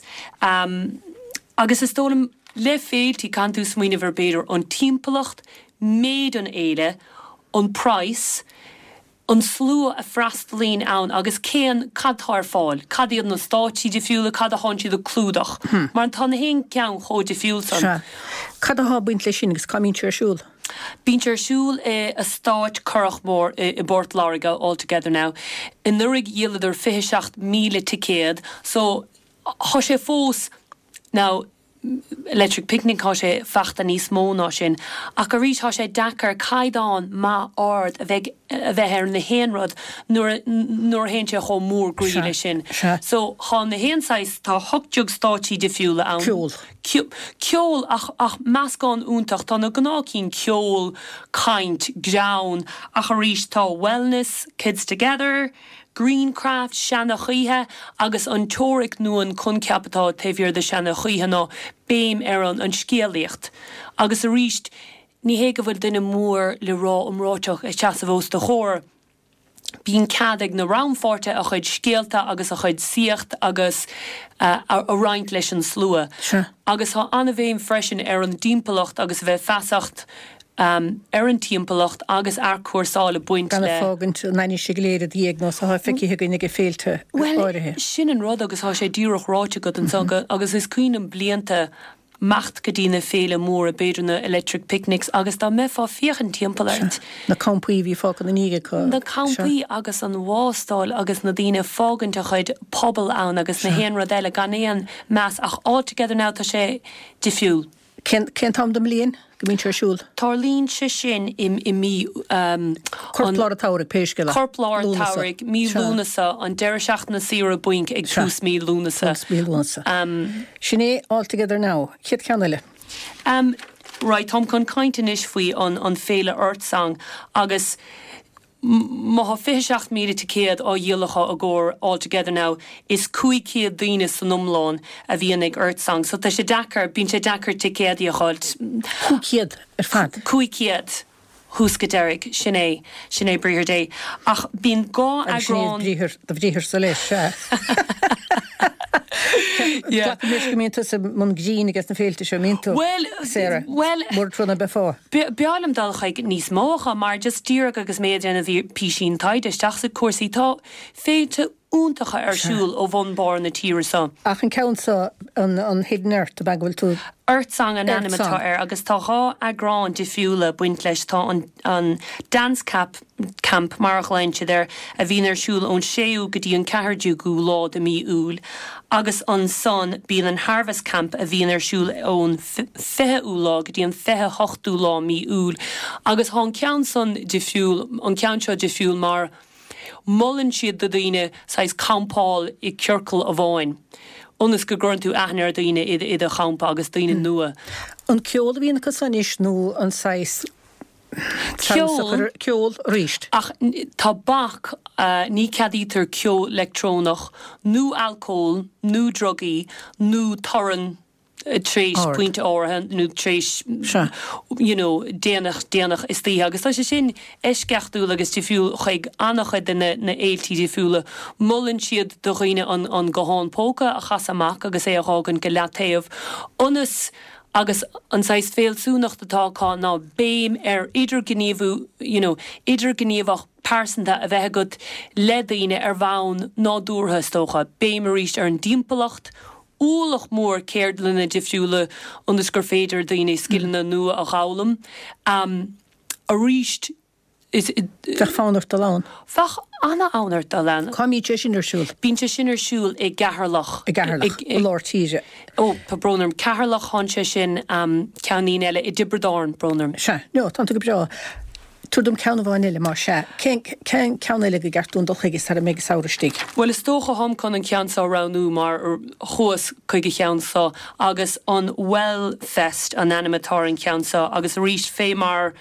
agus is dóigh liom, Le féiltí, caitheann tú smaoineamh ar b'fhéidir an timpeallacht, méid an fhéile, an praghas, an slua a freastalaíonn ann agus cén, cad tá ar fáil, cad iad na stáitsí difriúla, cad a thánn siad ag clúdach. Mar tá na haon ceann chomh difriúil san. Sea. Cad athá ag baint leis sin agus cá mbíonn sé ar siúl? Bíonn sé ar siúl i Eastát Currachmore i bPort Láirge, All Together Now. Anuraidh dhíoladar 27,000 ticéad so thá sé fós, now, Electric Picnic, thá sé fachta níos mó ná sin. Ach arís, thá sé deacair caighdeán maith ard a bheith a bheith ar na haon rud nuair a nuair a théann sé chomh mór groí leis sin. So, thá na haon saghas, tá 18 stáitsí difriúla ann. Ceol. Ceol ach ach meascán iontach. Tá na gnáth cinn, ceol, caint, greann, ach arís tá wellness, kids together,. Greencraft, Seana-Choithe, agus an teoiric nó an coincheap atá taobh thiar de Seana-Choithe ná béim ar an an scéalaíocht. Agus arís, ní hé go bhfuil duine mór le rá iomráiteach ag seasamh os do chomhair, bíonn cead ag na rannpháirtithe a chuid scéalta agus a chuid saíocht agus a roinnt leis an slua. Agus tá an-bhéim freisin ar an dtimpeallacht agus a bheith feasacht ar an timpeallacht agus athchúrsáil ag baint le. Gan ag fágaint an ainnise go léir i do dhiaidh nós atá feicthe againn ag féilte áirithe. Bhuel, sin an rud agus tá sé díreach ráite agat ansan agus is cuimhin liom blianta imeacht go dtí na féile móra, b'fhéidir na Electric Picnics agus dá mbeifeá féachaint timpeall ort. Na campaí a bhí fágtha ina ndiaidh acu. Na campaí agus an wástáil agus na daoine ag fágaint a chuid puball ann agus na haon rud eile gan aon meas ach All Together Now tá sé difriúil. Cén t-am den mbliain go mbíonn sé ar siúl? Tarlaíonn sé sin i i mí an. Corp lár an tsamhraidh, pé scéal é. Corp lár an tsamhraidh, mí Lúnasa, an deireadh seachtaine saoire bainc ag tús mí Lúnasa. Tús mí Lúnasa. Sin é All Together Now. Chéad cheann eile. Em, right, táim chun caint anois faoi an an féile Earth Song agus má thá 27,000 ticéad á dhíol acu i gcomhair All Together Now, is 500 daoine san iomlán a bhíonn ag Earth Song so tá sé deacair, bíonn sé deacair ticéadaí a dh'fháilt. 500 ar fad? 500. Thús go deiridh. Sin é. Sin é briathar Dé. Ach bíonn dhá Agus sin é eagrán. briathar, do bhriatharsa leis, sea. Yeah. Glacaim leis go mbíonn tusa i mbun grinn ages na féilte seo, mbíonn tú? Bhuel, Sarah, bhuel, mura trua ná beifeá. B'fhearr liom dul chuig níos mó acu mar just díreach agus mé ag déanamh písín taighde isteach sa cúrsaí, tá féilte iontacha ar siúl ó bhun barr na tíre seo. Ach an ceann seo, an Hidden Earth, ab ea go bhfuil tú. Earth Song an ainm atá air agus tá 2 eagrán difriúla baint leis. Tá an an Dance Cap, Camp mar a ghlaonn siad air, a bhíonn ar siúl ón 6ú go dtí an 14ú lá de mí Iúil agus ansan bíonn an Harvest Camp a bhíonn ar siúl ón 20ú lá go dtí an 28ú lá mí Iúil agus tá an ceann san difriúil, an ceann seo difriúil mar Molann siad do dhaoine saghas campáil i ciorcal amháin, ionas go gcuireann tú aithne ar dhaoine i do champa agus daoine nua. An ceol a bhíonn acu san anois nó an saghas Ceol. Ceol arís. Ach tá bac, ní ceadaítear ceol leictreonach nó alcól nó drugaí nó torann. tar éis pointe áirithe nó tar éis you know déanach déanach istoíche agus tá sé sin eisceachtúil agus difriúil chuig an-chuid de na na fhéiltí difriúla. Molann siad do dhaoine an an guthán póca a chasadh amach agus é a dh'fhágaint go leataobh ionas agus an saghas fealsúnacht atá acu ná béim ar idirghníomhú you know idirghníomhach pearsanta a bheith agat le daoine ar bhonn nádúrtha is dócha. Béim arís ar an dtimpeallacht, ualach mór ceardlanna difriúla ionas gur féidir daoine scileanna nua a dh'fhoghlaim. Arís, is. Bheadh fonn ort dul ann. Bheadh ana-fhonn ort dul ann. Cá mbíonn sé sin ar siúl? Bíonn sé sin ar siúl i gCeatharlach. I gCeatharlach, i lár tíre. Ó, tá brón orm. Ceatharlach, thánn sé sin, ceann eile i dTiobraid Árann, brón orm. Sea, no, tánn tú go breá. Tabhair dom ceann amháin eile, más ea. Cén cén ceann eile go gceart dúinn dul chuige sara mbeidh an samhradh istigh? Bhuel, is dócha tháim chun an ceann seo a roghnú mar chuas chuig an cheann seo agus an Well Fest an ainm atá ar an cheann seo agus arís fé mar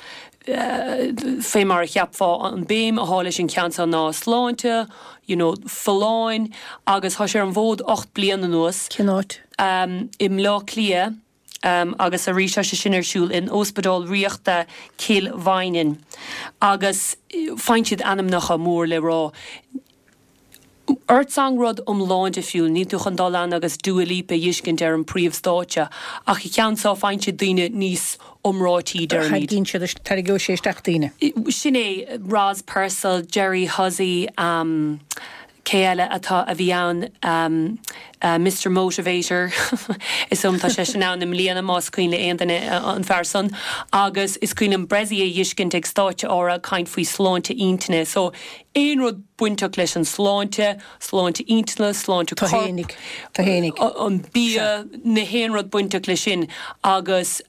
fé mar a cheapfá an béim athá leis an cheann seo ná sláinte, you know, folláin agus thá sé ar an bhfód 8 bliain anuas. Cén áit? I mBleá Cliath. Agus arís tá sé sin ar siúl in Óspidéal Ríochta Chill Mhaighneann agus faigheann siad ainmneacha mór le rá. Earth Song rud iomlán difriúil, níl tú chun dul ann agus Dua Lipa a dh'fheiscint ar an príomh-stáitse ach an ceann seo faigheann siad daoine níos iomráití deirimid. Tarraingíonn siad, tarraingeoidh sé isteach daoine. Sin é, Roz Purcell, Jerry Hussey, Cé eile atá, a bhí ann? Mister Motivator, is dóigh liom tá seisean ann i mbliana más cuimhin le aon duine an fear san. Agus is cuimhin liom Bressie a dh'fheiscint ag stáitse áirithe ag caint faoi sláinte intinne. So aon rud bainteach leis an sláinte, sláinte intinne, sláinte coirp, an bia, na haon rud bainteach leis sin. Agus.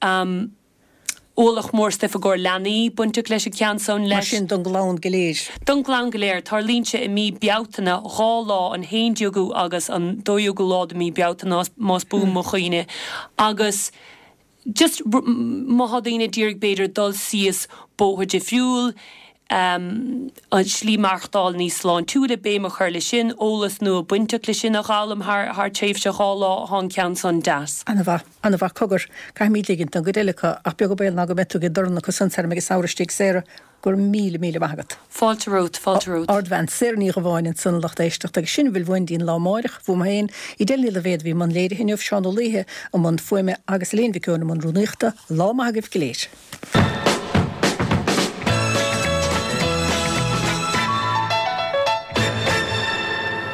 Ualach mór stuif i gcomhair leanaí bainteach leis an cheann san leis. Mar sin don gclann go léir. Don gclann go léir. Tarlaíonn sé i mí Bealtaine, 2 lá, an 11ú agus an 12ú lá de mí Bealtaine más buan mo chuimhne. Agus just má thá daoine ag iarraidh b'fhéidir dul síos bóthar difriúil. An slí maireachtáil níos sláintiúla, béim a chur le sin, eolas nua bainteach le sin a dh'fhoghlaim thar tréimhse 2 lá, thá an ceann san deas. Ana-mhaith. Ana-mhaith. Cogar, caithfimid ligint don gcuid eile acu, ach beag an baol ná go mbeidh tú ag dorn acu san tar ag an samhradh istigh, Sarah. Go raibh míle, míle maith agat. Fáilte romhat, fáilte romhat. Ardbhean, Sarah Ní Dhubháin ansan, lucht éisteachta, agus sin a bhfuil uainn dtí'n lá amáireach, bhuam féin, Edel Ní Loibhéad a bhí i mbun léirithe inniu, Seán Ó Laoithe i mbun fuaime agus Elaine Mhic Eoin i mbun rúnaíochta. Lá maith agaibh go léir.